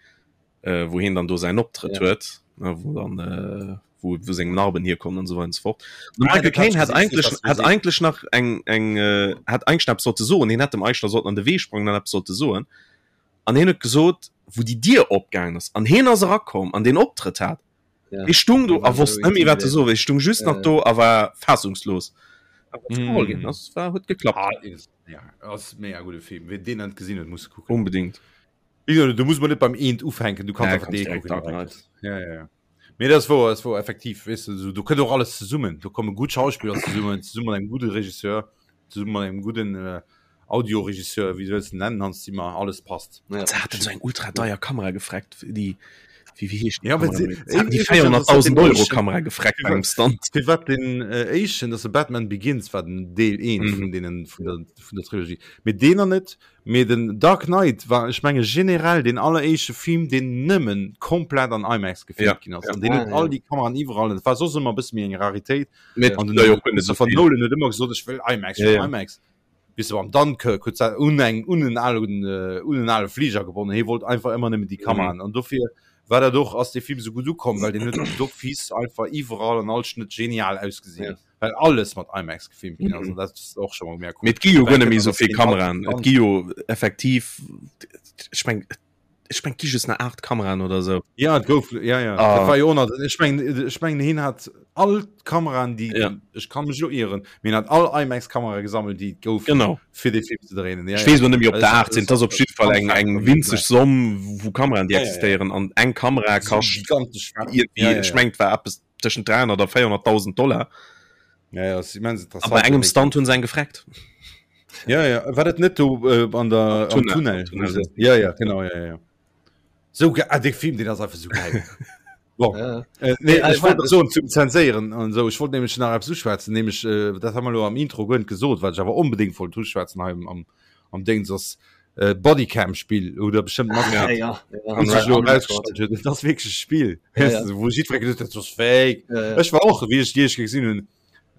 äh, wou hien dann do säin Optrëtt Ja. huet, ne, wou dann äh, wou, wou seng Narben hierkommen an esou weider an esou fort. De Ah, Michael dat hat Caine ech hat gesinn, eigentlech, dat hat gesinn. eigentlech nach eng, eng, äh, hat eigentlech nach eppes sollte soen. Hien hätt dem eigentlech nach sollten an de Wee sprangen an eppes sollte soen. An hien huet gesot, wou déi Dier opgaangen ass an hien ass erakomm an deen Optrëtt hat, Ja. hie stung do Hie war a wosst esou net méi wat e intimidiert. soe. Hie stung just Ja, nach ja. do a war fassungslos. Awer et ass geholl ginn, Mm. ass war huet geklappt. Ah, is, ja, ass mega gudde Film. Wien deen net gesinn huet, muss kucken. Onbedingt. Wéi gesot, do muss man net beim eent ufänken, du kanns Ja, einfach kanns dee direkt kucken Dark direkt. Knight. Ja, ja, ja. Mee dat ass wouer, ass wouer, effektiv, weess de, esou, do kënnt och alles zesummen. Do komme gutt Schauspiller zesummen, zesumme mat engem gudde Regisseur, zesumme mat engem gudden äh, Audioregisseur, wéi wëlls de nennen, Hans Zimmer, alles passt. Ja. Se haten esou eng ultra deier Kamera gefreckt, déi, wéi, wéi heescht déi Ja, well Kamera se, méi? Se haten déi iwwregens, ass dat 400.000 den Euro éischten, Kamera gefreckt bei engem Stunt. firwat den äh, éischten, dass de Batman Begins war den Deel 1 Mhm. vun deenen, vun der, vun der Trilogie. Mee deen nach net, Mee den Dark Knight war, ech menge generell, deen alleréischte Film, deen nëmmen komplett an IMAX gefilmt Ja, ginn ass. ja. An deen huet Ah, all ja. déi Kameraen iwwerall. Dat war soss ëmmer e bësse méi eng Raritéit. Mee An den ja, jo, guer net esou Christopher vill. Nolan huet ëmmer gesot, ech wëll IMAX, ech Ja, wëll ja. IMAX. Bis am Dunkirk huet se un eng un en alen äh, un en ale Fliger gebonnen. Hie wollt einfach ëmmer nëmmen déi Mhm. Kameraen. An dofir war dat och, ass dee Film esou gutt ukomm, well deen huet d'office einfach iwwerall an all Schnëtt genial ausgesinn. Ja. Well alles mat IMAX gefilmt ginn ass, Mhm. an dat ass och scho mol mega cool. Mee et gi jo Well guer net méi kënnt esou dass vill deen all Kameraen. Et gi jo effektiv, ech meng, ech meng, et gi just nach 8 Kameraen oder esou. Ja, et gouf, ja, ja. Ah. Dat war jo och nach, ech mengen, ech mengen, hien hat all d'Kameraen, déi, Ja. ech kann mech elo ieren, mee hien hat all IMAX-Kamerae gesammelt, déi et goufen, Genau. fir dee Film ze dréinen. Ja, Ech ja. weess elo net méi, ob Also, der 8 sinn. Et ass op jidde Fall Fun eng, Fact eng von winzeg nebenbei. Somm vu Kameraen, déi Ja, ja, ja. existéieren. An eng Kamera So kascht gigantesch. Ja, iergendwéi, ja, ech ja. mengen, et war eppes tëschent 300 a 400.000 Dollar. Ja, ja, ass immens A interessant. bei engem Stunt hunn se eng gefreckt. Ja, ja. War dat net do äh, an der, am Tunnel. Tunnel? Am Tunnel. wo se- Ja, ja, genau, ja, ja. So ge ah, de Film, den ass einfach so geil. Bon. Ja. Äh, nee, Nee, ech ich wollt mein, soen zum Zenséieren an esou. Ech wollt nämlech nach eppes uschwätzen, nämlech äh, dat hu mer elo am Intro guer net gesot, wat ech awer onbedéngt wollt uschwätzen hei am, am, am Déngs ass äh, Bodycam-Spill oder bestimmt Ah, mat ja, ja. wou sech elo On Record. erausgestallt huet, dat ass wierklech e Spill. Ja, Weess ja. de, wou jiddweree gesot huet, dat ass fake. Ja, ja. Ech war och, wéi ech déi éischt Kéier gesinn hunn,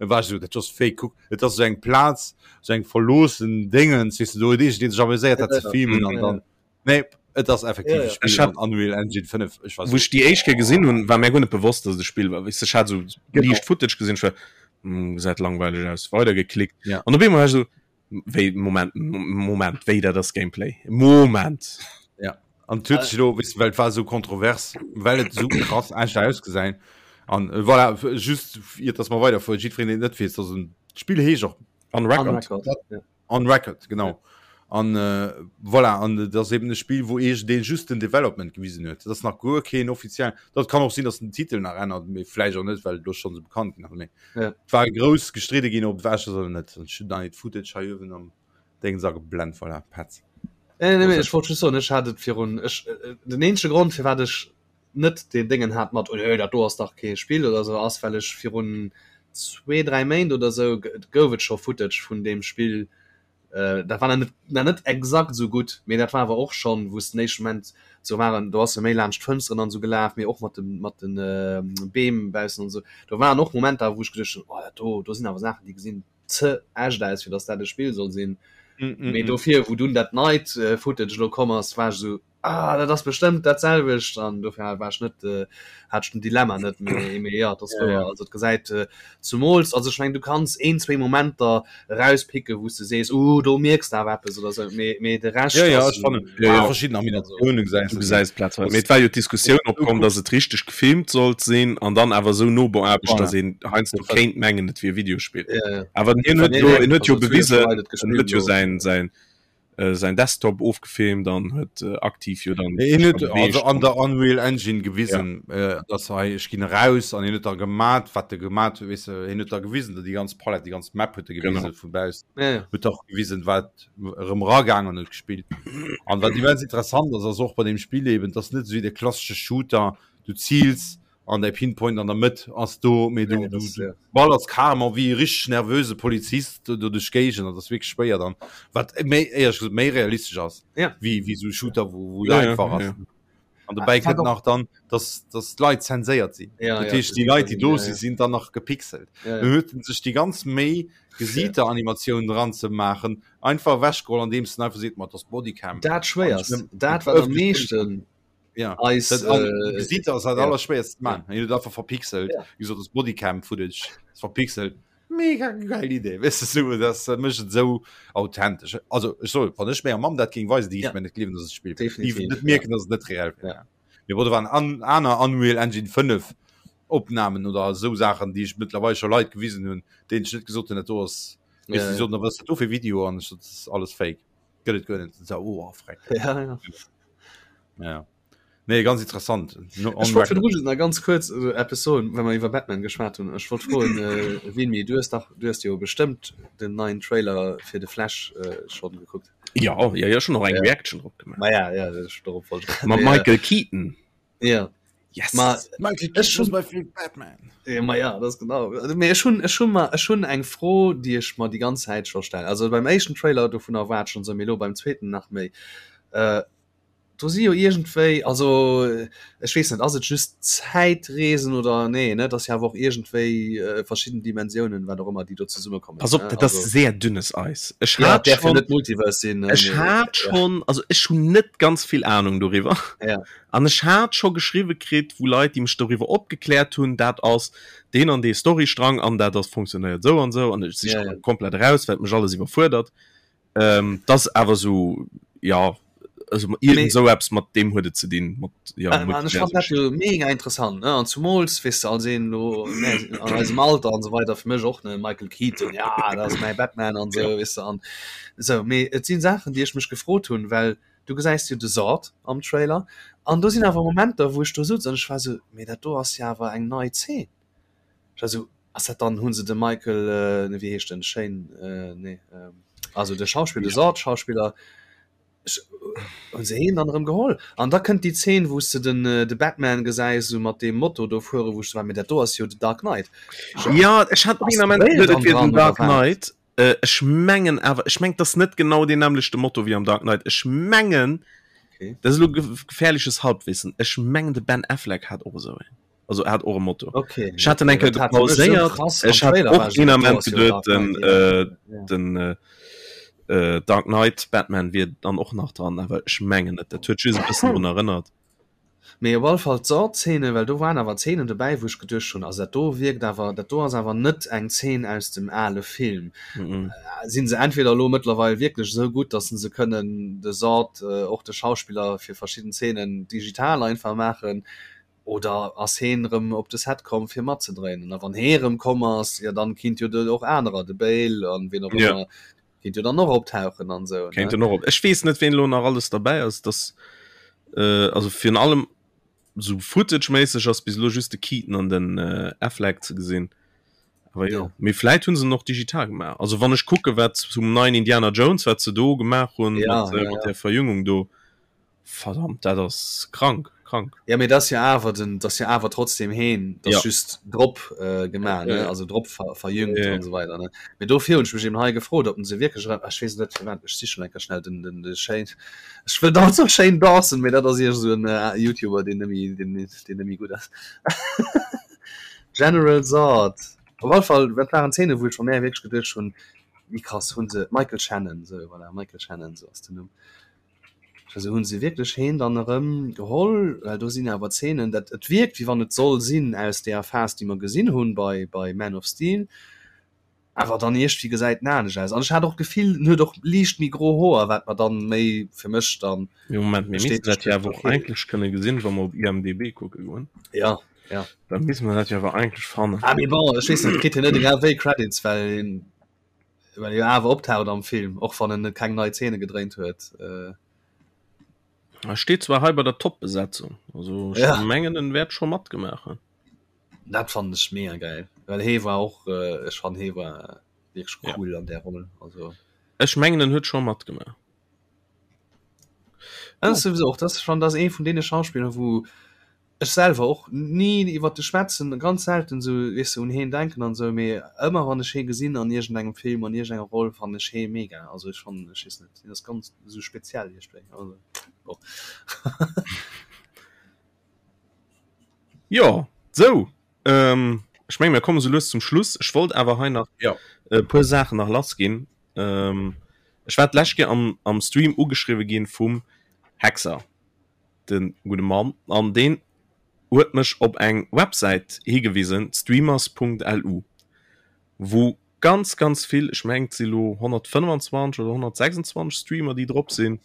war ech esou, dat ass fake, kuck, et ass esou eng Plaz, esou eng verloossen Déngens, weess de, do huet iergendeen sech amuséiert, dat ze Ja, filmen an ja. dann, nee, et ass effektiv Ja, e ja. Spill Ech hat- an Unreal Engine 5. Ech war Wou esou, ech déi éischt Kéier gesinn hunn, war mir guer net bewosst, dass et e Spill war. Weess de, ech hat esou Genau. liicht Footage gesinn, ech war, hm, gesäit langweileg aus, weidergeklickt. Ja. An op eemol war ech esou, Wéi Moment Moment wéi dat ass Gameplay Moment. Ja an huet sech elo wis well war sou kontrovers well et sou krass echt ausgesäin an äh, voilà just iert dass mer weider fuer jiddwereen deen et net weess dass en d'Spill heescht och On On Record. Record. Ja. On Record genau an äh, voilà an dat ass eben e Spill wou eech deen just den Development gewisen huet dat ass nach guer keen offiziell dat kann och sinn dass den Titel nach ännert mee vläicht och net well et elo schonn sou bekannt ginn ass mee Ja. war grouss gestridde ginn ob wäsch oder net an ech hunn dann Footage hei uewen am Déngens ageblent voilà Petz. Nee, nee, nee, ech wollt just soen, ech hat et virun ech äh, den eenzege Grond firwat ech net den Déngen hat mat oh, nee, dat do ass dach kee Spill oder sou ass well ech virun zwee dräi Méint oder sou gouf et scho Footage vun deem Spill Dat war nach net exakt esou gutt, mee dat war awer och schonn, wou s den éischte Moment sou waren, do ass e méi laanscht d'Fënsteren an esou gelaf, mee och mat de mat de Beem baussen an esou. Do waren och Momenter, wou ech geduecht hunn, oh dat do, do sinn awer Saachen, déi gesinn ze echt aus, fir datt dat e Spill soll sinn. Mee dofir, wou dunn dat neit Footage elo komm ass, war ech esou, Ah, dat ass bestëmmt dat selwecht an dofir war ech net äh, hat ech den Dilemma net mee mee ja, dat ass Ja, wouer. ja. Also et gesäit äh, zumools also ech meng du kanns een zwee Momenter erauspicke wou s de sees uh do mierks de awer eppes oder sou mee mee de Rescht Ja, ja, ass ech fannen Ja, ja. verschidden Animatiounen gesäis Du du. gesäis platzweis. Mee et war jo d'Diskussioun opkomm, dass et richteg gefilmt sollt sinn an dann awer esou no beaarbecht, Voilà. dass een heiansdo kéint mengen, et wier e Videospill. Ja, ja. Awer hien huet Nee, jo, nee, hien huet jo also et hu jo bewisen, scho Leit et en huet gespillt jo elo. säin, säin. Äh, säin Desktop ofgefilmt an huet äh, aktiv jo dann Hien huet also an der Unreal Engine gewisen ja. äh, dass hei ech ginn raus an hien huet da gemat wat de gemat huet weess de hien huet da gewisen déi ganz Palette déi ganz Map huet e gewisen vu baussen ja, ja. huet och gewisen wat erëm ragaang an huet gespillt an wat immens interessant ass ass och bei dem Spill eben dass net esou wéi de klassesche Shooter du ziils an däi Pinpoint an der Mëtt ass do, mee du, du, du ballers carrément wéi e richteg nervöse Polizist do duerch d'Géigend an dat ass wierklech schwéier dann, wat méi, éierlech gesot, méi realistesch ass ja. wéi, wéi esou e Shooter, wou, wou ja, einfach ass. Ja, ja. An dobäi kënnt nach dann, dass, dass d'Leit zenséiert sinn. Ja, dat heescht, déi Leit, déi do sinn, sinn dann nach gepixelt. Ja, ja. Dann huet en sech déi ganz Méi, Gesiiteranimatioun dran ze maachen, einfach ewechgeholl, andeems en einfach seet, ma dat ass Bodycam. Dat Schwéierst, dat wat am meeschten ja eis dat, äh, Gesiit ass dat ja. allerschwéierst man ja. huet einfach verpixelt ja. gesot das Bodycam Footage ist verpixelt mega geil Idee weißt du so das äh, mécht et so authentisch also ech soll wann ech menger Mamm dat géing weisen déi Ja. ja. mir net gleewen dass et Spill Definitiv, net mierken dass et net reell wär Ja. Mee bon, do waren an, aner Unreal Engine 5 Opnamen oder esou Saachen déi ech mëttlerweil scho Leit gewisen hunn deenen ech net gesot hunn dat do ass Ja, ja, ja. soten, was ass dat do fir Video an ech sot, das ist alles fake gëtt et guer net so, oh, freck. Ja, ja. Ja. Nee, ganz interessant. No, Ech wollt virdru just nach ganz kuerz äh, eppes soen, well mer iwwer Batman geschwat hunn. Ech wollt froen, äh, Vinny, du hues dach, du hues jo bestëmmt den neien Trailer fir de Flash äh, schonn gekuckt. Ja, ja, ja, schon noch eng Ja. Reaction drop gemacht. Ma ja, ja, ech dorop wollt Mat Mee, äh, Michael Keaton. Ja. Yes. Ma Michael Ech Keaton my favorite Batman. Ja, ma ja, das genau. Also, mee ech hunn, ech hunn mer, ech hunn eng Fro, déi ech mer déi ganz Zäit scho stellen. Also beim éischten Trailer dovunner war et schonn esou, mee elo beim zweeten nach méi. Äh, do si jo iergendwéi, also ech weess net, ass et just Zäitreesen oder nee, ne? Et ass jo awer och iergendwéi äh, verschidden Dimensiounen, wat och ëmmer, déi do zesummekommen. Pass op, ne? dat ass Also, sehr dünnes Eis. Ech ja, hat et däerf jo schon, net Multiverse sinn, ne? ech Mee, hat ja. schon, also ech hunn net ganz vill Ahnung doriwwer. Ja. An ech hat scho geschriwwe kritt, wou Leit, déi mech doriwwer opgekläert hunn, dat ass deen an dee Storystrang an dat ass funktionéiert esou an esou an ech si Ja, scho ja. komplett eraus, well et mech alles iwwerfuerdert. Ähm, dat ass awer esou, jo, also iergend esou eppes mat deem huet et ze dinn, mat, jo, An ech fannen dat jo mega interessant, ne? An zumools, weess de, als een elo, ne, an eisem Alter an esou weider, fir mech och, ne, Michael Keaton, ja, dat ass mäi Batman an esou, weess de, an esou. Mee et si Saachen, déi ech mech gefrot hunn, well Du gesäis jo de Zod am Trailer an do sinn awer Momenter, wou ech do sutz an ech war sou, mee dat do ass jo awer eng nei Zeen. Ech war sou, ass dat dann, hu se de Michael, nee wéi heescht en, Shane, nee, also de Schauspiller, de Zod-Schauspiller, ech, hu se heen dann erëm geholl? An da kënnt déi Zeen, wou s de den, de Batman gesäis, sou mat deem Moto do fueren, wou ech sou war, mee dat do ass jo de Dark Knight. Jo, ech hat och Ass een de Ament Bale geduet, et dann wier den dran oder Dark wat? Knight. Äh, ech mengen awer, ech mengen, das net genau den nämlechte Motto wéi am Dark Knight. Ech mengen, Okay. das ist elo gefährliches Halbwissen. Ech mengen, de Ben Affleck hat och esou een. Also er hat och e Motto. Okay. Ech hat den okay. enke Dat hat fir mech esou gepauséiert. krass am Ech hat Trailer war och ech esou, een dat do Ament ass jo geduet, Dark den, Knight, ja. äh, Ja. den äh, äh, Dark Knight Batman wier dann och nach dran, awer ech mengen net. Dat huet just e bëssen drun erënnert. Mee op alle Fall d'Saw-Zeene, well do waren awer Zeenen dobäi, wou ech geduecht hunn, also dat do wierkt awer, dat do ass awer net eng Zeen aus dem ale Film. Si se entweder elo mëttlerweil wierklech esou gutt, datt se kënnen de Zod, och de Schauspiller fir verschidden Zeenen digital einfach maachen, oder ass heen erëm op de Set komm fir matzedréinen? A wann hee erëm komm ass, jo dann kinnt jo och anerer, de Bale an wien och ëmmer, Kéint jo dann och optauchen an sou. Kéint en och op. Ech weess net ween elo nach alles derbäi ass, dass äh, also virun allem sou Footage-méisseg ass bis elo just de Keaton an den äh, Affleck ze gesinn. Awer jo, Ja. mee vläit hunn se en och digital gemaach. Also wann ech kucke wat zum neien Indiana Jones wat se do gemaach hunn Ja, mat, äh, ja, mat ja. der Verjüngung do, Verdammt, dat ass krank, krank. Ja, mee dat ass jo awer den, dat ass jo awer trotzdem heen, dat ass Ja. just drop äh, gemaach, ne? Ja. Also drop ver, verjüngt Ja. an esou weider, ne? Mee dofir hunn ech mech eben hei gefrot, ob en se wierklech erëm, ech weess net firwat, ech sichen enker schnell den, den, de Shane, ech wëll dauernd soen Shane Dawson, mee dat ass iergend esou en äh, YouTuber, deen net méi, deen, deen net méi gutt ass. General Zod. Op alle Fall, dat waren Zeenen, wou ech bei mär wierklech geduecht hunn, wéi krass hunn se, Michael Shannon, sou, voilà, Michael Shannon, sou ass den Numm. Also hunn se wierklech heen dann erëm geholl, well do sinn awer Zeenen, dat et wierkt wéi wann et soll sinn aus deeër Phas déi mer gesinn hunn bei bei Man of Steel, awer dann iergdwéi gesäit en anescht aus an ech hat och d'Gefill en huet och liicht méi gro Hoer, wat mer dann méi fir mech dann Mee Moment, mir missten bestätegt dat jo huet, awer och okay. eigentlech kënne gesinn, wa mer op IMDb kucke goen. Ja, ja. Da misste mer dat jo awer eigentlech fannen. Ah mee bon, ech weess net, kritt hien net egal wéi Credits, well hien. Well e jo awer optaucht am Film, och wann en net keng nei Zeene gedréint huet. Äh. E steet zwar hei bei der Top-Besetzung, also ech ja. mengen en wäert scho matgemaach hunn. Dat fannen ech mega geil, well hee war och, äh, ech fannen hee war wierklech cool ja. an där Roll. Also. Ech mengen en huet scho matgemaach. Dat ass sowieso och, dat ass schon, dat ass ee vun deene Schauspiller, wou ech selwer och ni iwwert de schwätzen, ganz selten sou, weess de, un heen denken an sou, mee ëmmer wann ech hee gesinn an iergendengem Film, an iergendenger Roll, fannen ech hee mega. Also ech fannen, ech weess net, hien ass ganz sou speziell iergendwéi, also bon. Jo, sou, ech menge mir komme sou lues zum Schluss. Ech wollt awer hei nach Jo. e puer Saachen nach lass ginn. Ech war d'lescht Kéier am, am Stream ugeschriwwe ginn vum Hexer. de gudde Mann, an deen huet mech op eng Websäit higewisen, streamers.lu, wou ganz, ganz vill, ech mengen et si lo 125 oder 126 Streamer, déi drop sinn,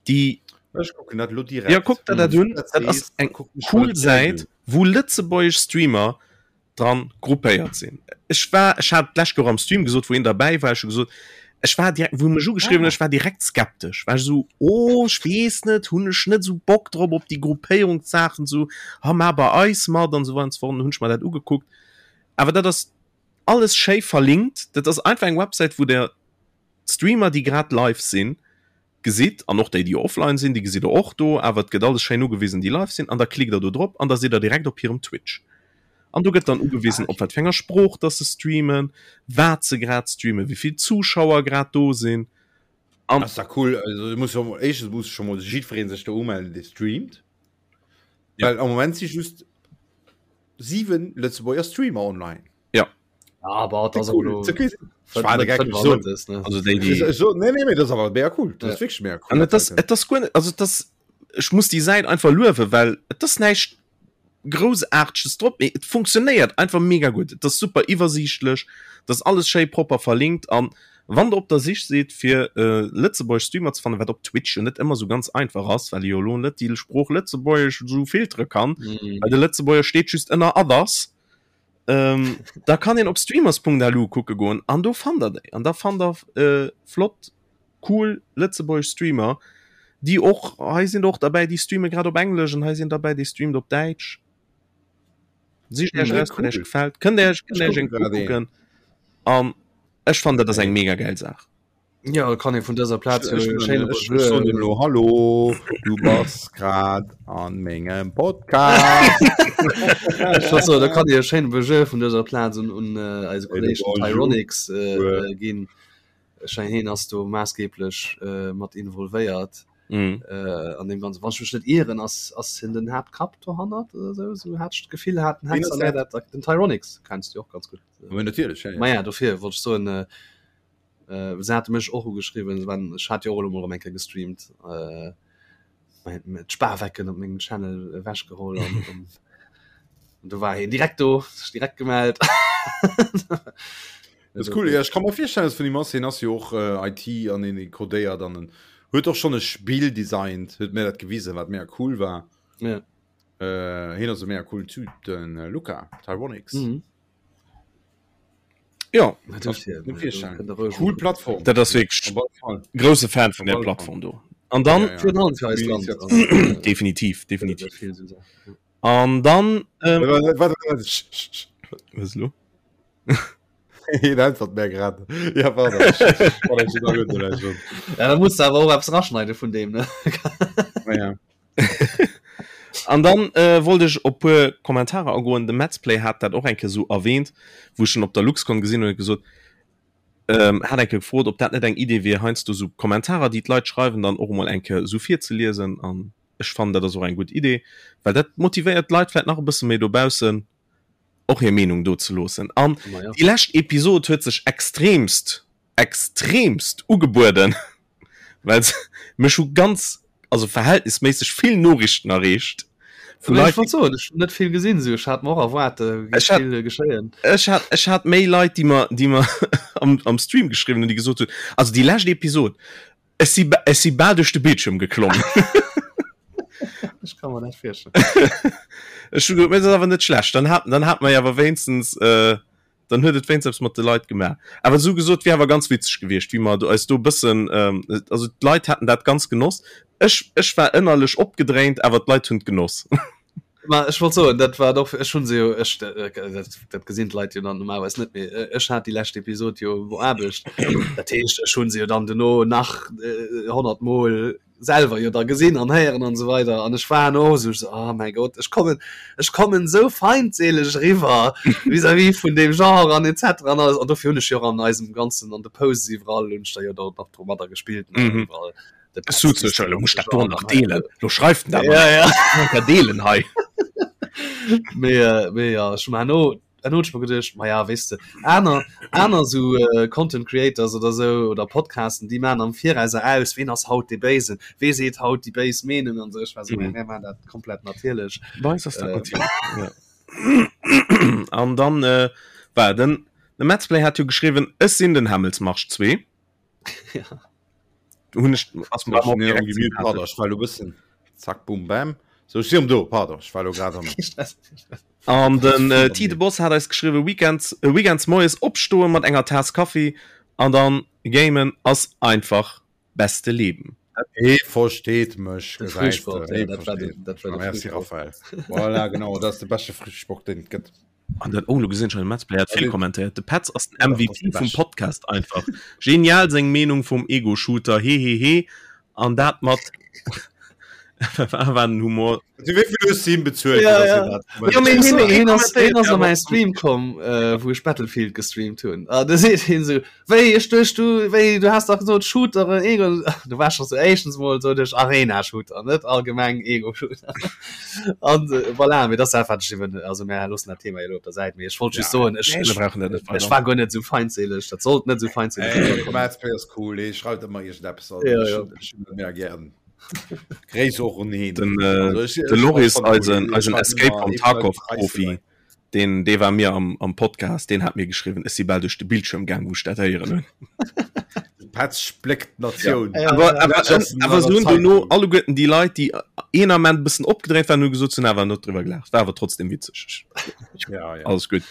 déi. Ech kucken dat elo direkt. Jo, kuck der dat un, dat ass eng cool Säit, wou lëtzebuergesch Streamer dran gruppéiert sinn. Ech war, ech hat d'lescht Joer am Stream gesot, wou een derbäi war, ech hu gesot, ech war direkt, wou mech ugeschriwwen huet, ech war direkt skeptesch, war ech esou, oh ech weess net, hunn ech net esou Bock drop op déi Gruppéierungssaachen, esou, ha mar bei eis mat an esou weider an esou fort. An hunn ech mer dat ugekuckt. Awer dat ass alles schéi verlinkt, dat ass einfach eng Websäit, wou der d'Streamer, déi grad live sinn, gesitt, an och déi, déi offline sinn, déi gesitt der och do, awer et gëtt alles schéin ugewisen, déi live sinn, an da klickt der do drop an da sidd der direkt op hirem Twitch. An do gëtt dann ugewisen, op wat fir enger Sprooch dass se streamen, wat se grad streamen, wéi vill Zuschauer grad do sinn. An Ass da cool. Also muss jo mol, éischtens muss scho mol jiddweree sech do umellen, dee streamt. Ja. Well am Moment si just 7 Lëtzebuerger Streamer online. Ja. Aber das cool. Okay. Also déi, déi so, nee, nee, nee, das awer mega cool. Das ja. wirklich mega cool. An das, das gut, also das ech muss die Säit einfach luewe, well et ass näischt groussaarteges drop, mee et funktionéiert einfach mega gutt. Et ass super iwwersiichtlech, dat ass alles schéi propper verlinkt an wann der op der Sich sidd fir äh, lëtzebuergesch Streamer ze fannen, wat op Twitch jo net ëmmer sou ganz einfach ass, well ee jo elo net déi Sprooch Lëtzebuergesch sou filtere kann, mm. well de Lëtzebuerger steet just ënner Others. Ähm, da kann een op streamers.lu kucke goen an do fannt der déi. An da fannt der äh, flott, cool lëtzebuergesch Streamer, déi och, hei sinn och derbäi, déi streame grad op Englesch an hei sinn derbäi, déi streamt op Däitsch. Sicht Iech Ja, eraus, wat cool. Iech gefält. Kënnt Iech, kënnt Ech Iech eng kucke grad een. ukucken. An ech fannen, dat ass eng mega geil Saach. Ja, kann ee vun dëser Plaz jo e schéine Bonjour. Lo, hallo, du bass grad an mengem Podcast. Ech wollt soen, da kann Dir e schéine Bonjour vun dëser Plaz un, un äh, eise Kolleg den Tyronics äh, äh, ginn. Ech mengen, hien ass do maassgeblech äh, mat involvéiert Mm. äh, an deem Ganzen. Wann ech mech net ieren, ass, ass hien den Haaptkapp dohannert oder sou? Sou hat ech d'Gefill, hat den Wien ass Hexer mär dat? dat, den Tyronics kenns du jo och ganz gutt. Ma natierlech, ja, ja. Ma ja, dofir wollt ech soen, äh, Äh, se hate mech och ugeschriwwen, wann ech hat jo och elo mol erëm eng Kéier gestreamt, äh, d'Spawecken op mengem Channel ewechgeholl an, an do war hien direkt do, sech direkt gemellt. Das ist cool. Ja, ich kann mir vorstellen, dass vun him ass. Hien ass jo och äh, IT an en codéiert an en huet och schon e Spill designt, huet mir dat gewisen, wat mega cool war. Ja. Äh, hien ass e mega cool Typ, den äh, Luca Tyronics. Mhm. Ja cool Plattform dat ass wierklech grousse Fan vun der Plattform do an dann ja, ja. definitiv definitiv an dann ähm, was lo mehr grad ja, ja, da muss awer och eppes raschneide vun dem ne ja. An dann äh, wollt ech op puer Kommentarer agoen. De Metzplay hat dat och eng Kéier sou erwähnt, wou ech en op der LuxCon gesinn hunn, huet gesot, ähm, hat eng Kéier gefrot, ob dat net eng Idee wier, heiansdo sou Kommentarer, déi d'Leit schreiwen, dann och emol eng Kéier sou virzeliesen. An ech fannen, dat ass och eng gutt Idee, well dat motivéiert d'Leit vläicht nach e bësse méi dobaussen, och hir Meenung do ze loossen. An déi lescht Episod huet sech extremst extremst ugebueden, well se mech hu ganz, also verhältnisméisseg vill Noriichten erreecht vu Leit. Ech wollt soen, ech hunn net vill gesinn, sou ech hat mer och erwaart, géif vill geschéien. Ech hat, ech hat méi Leit, déi mer, déi mer am, am Stream geschriwwen hunn, déi gesot hunn, also déi lescht Episod, ech si, ech si bal duerch de Bildschirm geklommen. Ech ka mer dat virstellen. Ech hu gesot, mee dat ass awer net schlecht, dann hat, dann hat mer jo awer wéinstens. Dann huet et wéinst eppes mat de Leit gemaach. Awer sou gesot, wier awer ganz witzeg gewiescht, wéi mer do eis do e bëssen, also d'Leit haten dat ganz genoss. Ech, ech war ënnerlech opgedréint, awer d'Leit hunn et genoss. Ma ech wollt soen, dat war och, ech hunn se jo, ech, dat, dat gesinn d'Leit jo dann normalerweis net, mee ech hat déi lescht Episod jo op Aarbecht. Dat heescht, ech hunn se jo dann dono nach 100 Mol selwer jo da gesinn an héieren an esou weider an ech war no esou so, oh mäi Gott ech kommen ech kommen esou feindseeleg eriwwer vis-à-vis vun deem Genre an etc an alles an dofir hunn ech jo och an eisem ganzen an de Posts iwwerall hunn ech da jo da nach domadder gespillt ne mhm. iwwerall Lo muss dat do nach deelen lo schreift den dat ja, ja. deelen hei mee, äh, mee ja ech man no Dann hunn ech mer geduecht, ma ja, weess de, aner, aner esou Content Creators oder esou oder Podcasten, déi maachen am Virauser aus, ween ass haut dee Béisen, wee seet haut déi béis Meenung an esou. Ech war esou, mä mir maachen dat komplett natierlech. Bei eis ass dat natierlech, ja. An dann war den, de Metzplay hat jo geschriwwen, Ech sinn den Hämmelsmarsch 2. Ja. Hunn ech, ass mer Ech direkt gemute, pardon, ech war elo bëssen zack, bum, bam. Sou, ech si erëm do, pardon, ech war elo grad am. Kee Stress, kee Stress. An den äh, T de Boss hat eis geschriwwen, Weekends, äh, Weekends moies opstoen mat enger Taass Kaffi an dann gamen ass einfach beste Leben. Hee versteet mech, De gesäis de. Frühsport, ja, Hee dat war versteet den, dat mech. war de Merci Frühsport. Raphael. Voilà, genau, dat ass de beschte Frühsport, deen et gëtt. An dann, oh, lo gesinn ech hei, de Metzplay hat vill kommentéiert. De Petz ass den Ja, dat ass MVP de vum beschten. Podcast einfach. Genial seng Meenung vum Ego-Shooter, hehehe. An dat mat war den Humor. Du wéi vill hues du him bezuelt? Ja, ja. Ja, mee hien, hien Hien ass, hien ass kommentéiert a mäi Stream komm, äh, wou ech Battlefield gestreamt hunn. A da seet hien esou, Wéi, ech duecht du, wéi, du has dach gesot Shooteren, Ego. Du war scho sou éischtens mol sot ech Arena-Shooter, net allgemeng Ego-Shooter. An äh, voilà, mee dat ass dat, wat ech iwwen, also mär loossen dat Thema elo op der Säit, mee ech wollt just Ja. soen, ech, Nee, mir ech, brauchen dat net ech weider. war guer net esou feindséileg, dat sollt net esou feindséileg Ey, eriwwerkommen. Madsplay ass cool, hee schreift ëmmer iergendeppes. Also, Ja, ech ja. hunn, ech hunn e mega gären. Gréiss och un heen. Den, äh, Also, ech, de ech, ech Loris, fannen cool. eisen, Hee eisen schreift Escape ëmmer from ee vun eisen Tarkov Preise Profi, bei. deen, dee war mir am, am Podcast, deen hat mir geschriwwen, ech si bal duerch de Bildschirm gaang, wou ech dat héieren hunn. De Petz spléckt d'Natioun. Ja, Awer, ja. awer, Dat ass en awer aner se hunn dono Zeitung. alleguerten déi Leit, déi een Ament e bëssen opgedréint waren, hu gesot, se hunn awer net driwwer gelaacht. War awer trotzdem witzeg. Ja, ja. Alles gutt.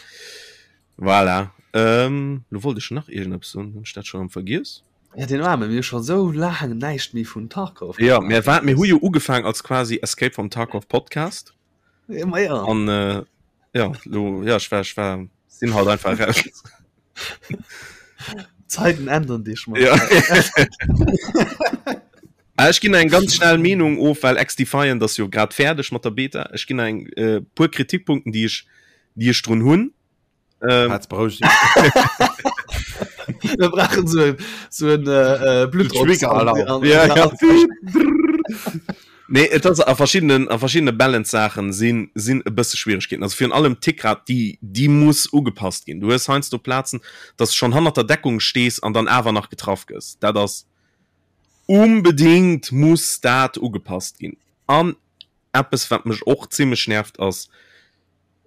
Voilà. Ähm, lo wollt ech nach iergendeppes soen, hunn ech dat scho erëm vergiess? Ja, den Arme, mir hu scho sou laang näischt méi vun Tarkov Ja, gemaach. mir war, mir hu jo ugefaang als quasi Escape from Tarkov Podcast. Ja, ma ja. An äh, ja, lo, ja, ech war, ech war, sinn halt einfach raus. Zeiten ändern dich mal. Ja. Ah, ech ginn eng ganz schnell Meenung of, well XDefiant ass jo grad fäerdeg mat der Beta. Ech ginn eng äh, puer Kritikpunkten, déi ech, déi ech drun hunn. Ähm, Petz, beroueg dich. Wir brauchen so ein, so ein äh, äh, Blutdruck. Trigger-Alarm. Ja, ja. Nee, et ass a verschiddenen, a verschiddene Balance-Saachen sinn, sinn e bësse Schwieregkeeten. Also virun allem d'Tickrate, déi, déi muss ugepasst ginn. Du hues heiansdo Plazen, dass du schonn hannert der Deckung stees an dann awer nach getraff gëss. Dat ass unbedingt muss dat ugepasst ginn. An eppes, wat mech och zimmlech nervt, ass,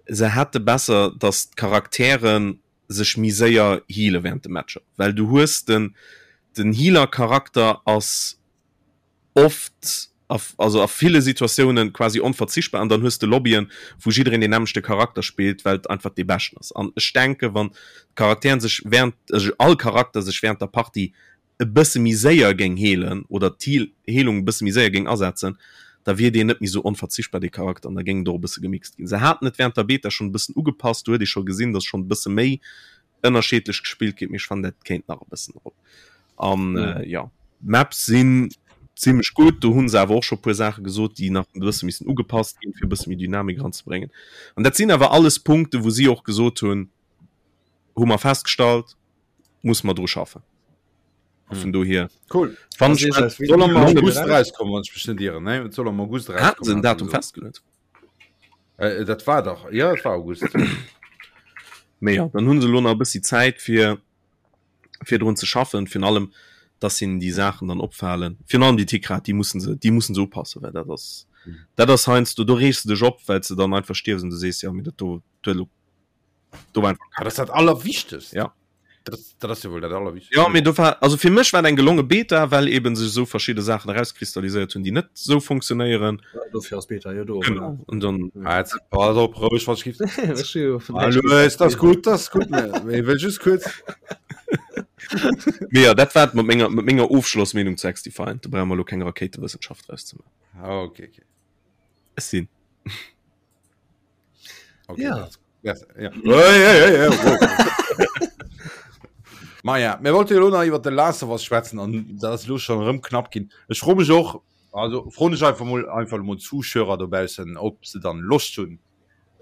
se hätte besser, dass d'Charakteren sech méi séier heale während de Matcher, well du hues den, den Healer-Charakter ass oft also a ville Situatiounen quasi onverzichtbar an dann hues de Lobbyen, wou jiddereen deen nämmlechte Charakter spillt, well et einfach dee beschten ass. An ech denke wann d'Charakteren sech während, also all Charakter sech während der Partie e bësse méi séier géing heelen oder d'Heelung e bësse méi séier géing asetzen, da wier deen net méi esou onverzichtbar, dee Charakter, an da géing et och e bësse gemixt ginn. Se haten et während der Beta schonn e bëssen ugepasst, do huet ee scho gesinn, datt schonn e bësse méi ënnerscheedlech gespillt ginn, mee ech fannen dat kéint nach e bëssen erop. An äh, ja, d'Maps sinn zimmlech gutt, do hunn se awer och scho puer Saache gesot, déi nach e bësse missen ugepasst ginn, fir e bësse méi Dynamik eranzebréngen. An dat sinn awer alles Punkte, wou si och gesot hunn, hu mer festgestallt, muss mer dru schaffen. A vun dohier Cool. fannen Also ech ich dat als Soll am gelongen. August rauskommen, wann ech mech net ieren, ne? Et soll am August Haten se rauskommen, en haten se Datum gesot. festgeluet? Äh, dat war dach, ja, et war August. Mee ja, dann hunn se elo nach e bëssi Zäit fir fir drun ze schaffen, virun allem dass hinnen déi Saachen dann opfalen, virun allem déi Tickrate, déi mussen se, déi mussen se upassen, well dat ass, dat ass heiansdo, do reegs de dech op, well s de dann einfach stierfs an du sees, jo mee dat do, do huet elo, do war einfach Ah, dat ass dat Allerwichtegst. Ja. Dat, dat ass jo wuel dat allerwichtigst. Ja, mee do war, also fir mech war et eng gelonge Beta, well eben sech esou verschidde Saachen erauskristalliséiert hunn, déi net esou funktionéieren. Ja, dofir ass Beta jo do. Genau. Und dann Ah, jetzt, pass op, roueg, was ich Hallo, ist das gut, das ist gut. Ich will just kurz. Mee ja, dat war et mat menger, mat menger Ofschlossmeenung zu XDefiant. Do brauche mer elo keng Rakéitewëssenschaft draus ze maachen. Ah, okay, okay. Ech sinn. Okay, ja. Das, ja. Hey, hey, hey, hey, wow. Ma ja, mir wollte jo nach iwwer de Last of Us schwätzen an dat ass lo schon rëm knapp ginn. Ech fro mech och, also froen ech einfach mol einfach mol Zuschauer dobaussen, ob se dann Loscht hunn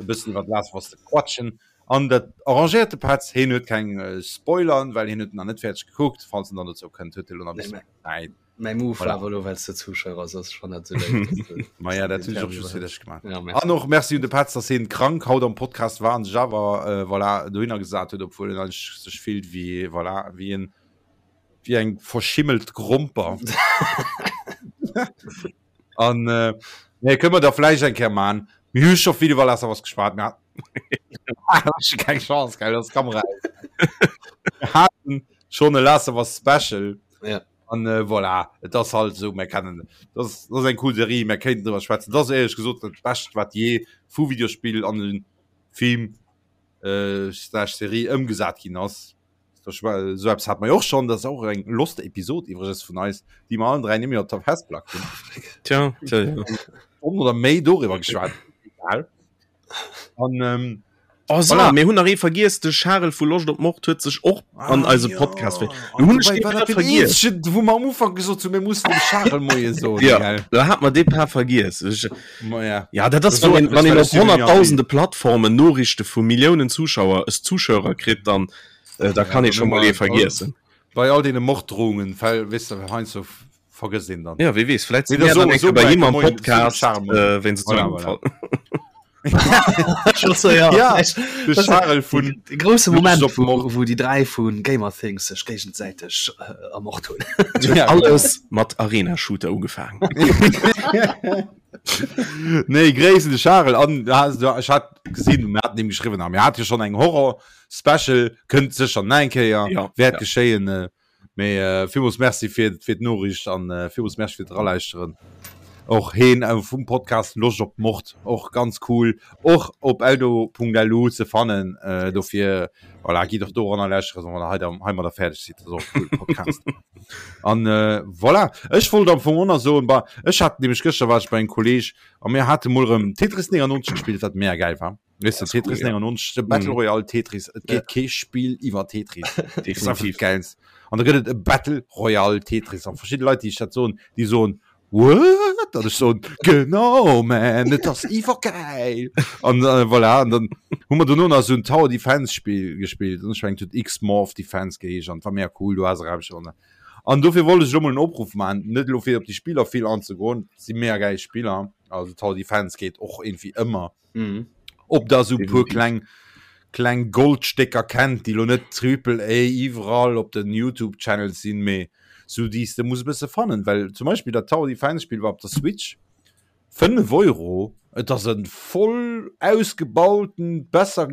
e bëssen iwwer Last of Us ze quatschen. An dat arrangéiert de Petz, hien huet keng äh, Spoilern, well hien huet nach net fäerdeg gekuckt. Falls en dann dozou kënnt, huet e lo nach e bëssen Zäit. Mäi Move war awer elo, well s de Zuschauer ass, ass schonn net esou léif, dass de Ma ja, dat hunn ech och just fir dech gemaach. Ja, merci. An och Merci un de Petz, dass hien krank haut am Podcast war an sech awer äh, voilà, dohinner gesat huet, obwuel en eigentlech sech fillt wéi, voilà, wéi en, wéi eng verschimmelt Gromper. An äh, nee, kënne mer da vläicht eng Kéier man. Mir hu scho vill iwwer Last of Us geschwat, mir haten keng Chance, gell, dass d'Kamera aus. Mir haten schonn e Last of Us Special. Ja. An äh, voilà, et ass halt esou, mir kennen, dat ass, dat ass eng cool Serie, mir kéinten driwwer schwätzen. Dat ass éierlech gesot dat Bescht, wat jee vu Videospill an e Film äh, slash Serie ëmgesat ginn ass. Esou eppes hat mer jo och schonn, dat ass och eng lost Episod iwwregens vun eis, déi mer allen 3 net méi op der Festplack hunn. Tja, tja, ja. Stonn oder méi doriwwer geschwat. Egal. An ähm, Oh, so, voilà. Mir hunn nach ee vergiess, de Charel vu Loscht op Mord huet sech och ah, an eise ja. Podcast ver. Du hunn ech grad vergiess. Wou mer am Ufank gesot hunn, mir mussen dem Charel Moie soen. Ja, gell? da hat mer dee Paar vergiess. Ech, Ma ja. Ja, dat ass, wann een, wann een op honnerttausende Plattformen Noriichte vu Milliounen Zuschauer, es Zuschauer kritt, dann äh, da kann ee scho mol ee vergiessen. Bei all deene Morddrohungen, well, weess de, heiansdo vergësst een dann. Ja, wie weess, vläit si mir dann eng Kéier bei him am Podcast, äh, wéinst voilà, voilà. Ja, de Charel vun de grousse Moment, wou, wou déi 3 vu Gamer Things sech géigesäiteg äh, ermort hunn. Ja, alles mat Arena Shooter ugefaangen. Nee, Gréiss un de Charel an ech hat gesinn, mir haten him geschriwwen a mir hate jo schonn eng Horror Special, kënnt sécher nach eng Kéier, Ja, wäert ja. geschéien. Äh, mee äh, villmools Merci fir, fir d'Noriicht an äh, villmools Merci fir d'Eralauschteren. Och heen äh, vum Podcast Loscht op Mord, och ganz cool, och op eldo.lu ze fannen. Äh, dofir, voilà, gitt och doranner lauschteren, wann der hei, da, heimadder fäerdeg sidd. Dat ass och e coole Podcast. An äh, voilà, ech wollt am Fong och nach soen, bah, ech hat nämlech gëschter war ech bei engem Kolleg a mir hate mol erëm Tetris 99 gespillt, wat mega gäil war. Weißt du, Tetris cool, 99, de Battle mhm. Royale Tetris, et geet ja. kee Spiel iwwer Tetris. Definitiv. Geilst. An da gëtt et e Battle Royale Tetris an verschiedene Leit, déi ech dat soen, déi soen, What? An ech soen, genau, man, et ass iwwergäil. An äh, voilà, an dann hu mer dono nach esou en Tower Defense Spiel gespillt. An ech mengen, et huet X-Morph Defense geheescht an et war mega cool, du has erauscht an An dofir wollt ech elo mol en Opruff maachen, net elo fir op déi Spiller vill anzegoen, et si mega gäil Spiller, also Tower Defense geet och irgendwie ëmmer. Mhm. Ob der esou e puer kleng kleng Goldstécker kennt, déi lo net Triple A iwwerall op den YouTube Channels sinn, mee sou déi s de muss e bësse fannen, well zum Beispill dat Tower Defense Spill war op der Switch 5 Euro, et ass e voll ausgebauten, besser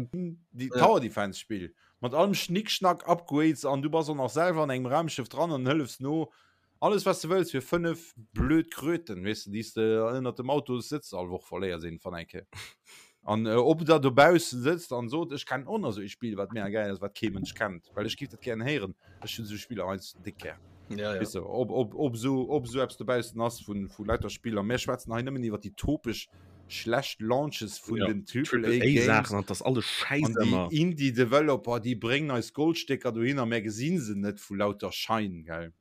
Tower Defense Spill mat allem Schnickschnack, Upgrades an du bass och nach selwer an engem Raumschëff dran an hëllefs no Alles wat s de wëlls fir 5 blöd Kröten, weess de, déi s de ënnert dem Autossëtz all Woch verléiers iergendwann eng Kéier. An ob der dobaussen sëtzt an sot, ech kennen och nach esou ee Spill, wat mega gäil ass, wat kee Mënsch kennt, well ech giff dat gären héieren. Ech hunn esou Spiller heiansdo déck gär. Ja, ja. Weess de, ob, ob, ob esou, ob esou eppes dobaussen ass vun, vu lauter Spiller. Mir schwätzen hei nëmmen iwwer déi topesch schlecht Launches vun Ja, den Triple Triple A A Games. Saachen an 't ass alles Schäiss An déi ëmmer. Indie Developer, déi bréngen eis Goldstécker dohinner, mär gesinn se net vu lauter Schein, gell.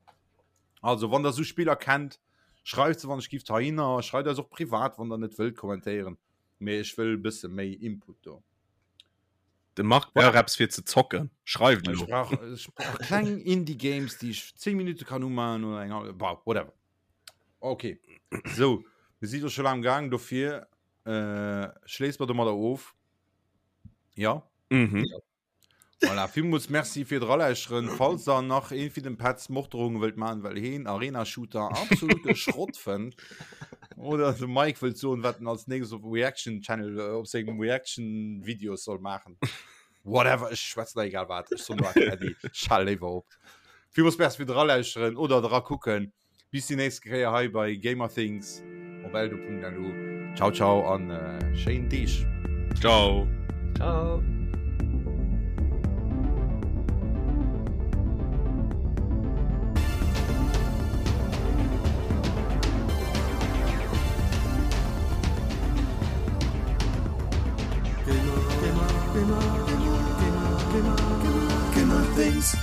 Also wann der sou Spiller kennt, schreift se wann ech gift heihinner, schreift eis och privat wann der net wëllt kommentéieren, mee ech wëll e bësse méi Input do. De Marc brauch eppes fir ze zocken, schreift Ech elo. brauch, ech brauch kleng Indie Games, déi ech 10 Minutte kann umaachen oder eng hallef, bah, whatever. Ok, sou, mir si do scho laang am Gaang, dofir äh, schléisse mer domadder of. Ja? Mhm. Voilà, villmools Merci fir d'Eralauschteren. Falls der nach een fir den Petz Morddrohungen wëllt maachen, well heen Arena Shooter absolute Schrott fënnt, oder de Mike wëllt soen, wat en als nächstes op Reaction Channel, op sengem Reaction Videos soll maachen. Whatever, ech schwätzen da egal wat. Ech soen nur einfach Äddi. Ech hale léiwer op. Villmools Merci fir dralauschteren oder dra kucken. Bis déi nächst Kéier hei bei Gamerthings op eldo.lu. Ciao ciao an äh, schéin Deeg. Ciao. Ciao. Gamer, Gamer, Gamer, Gamer, Gamer, Gamer, Gamer Things.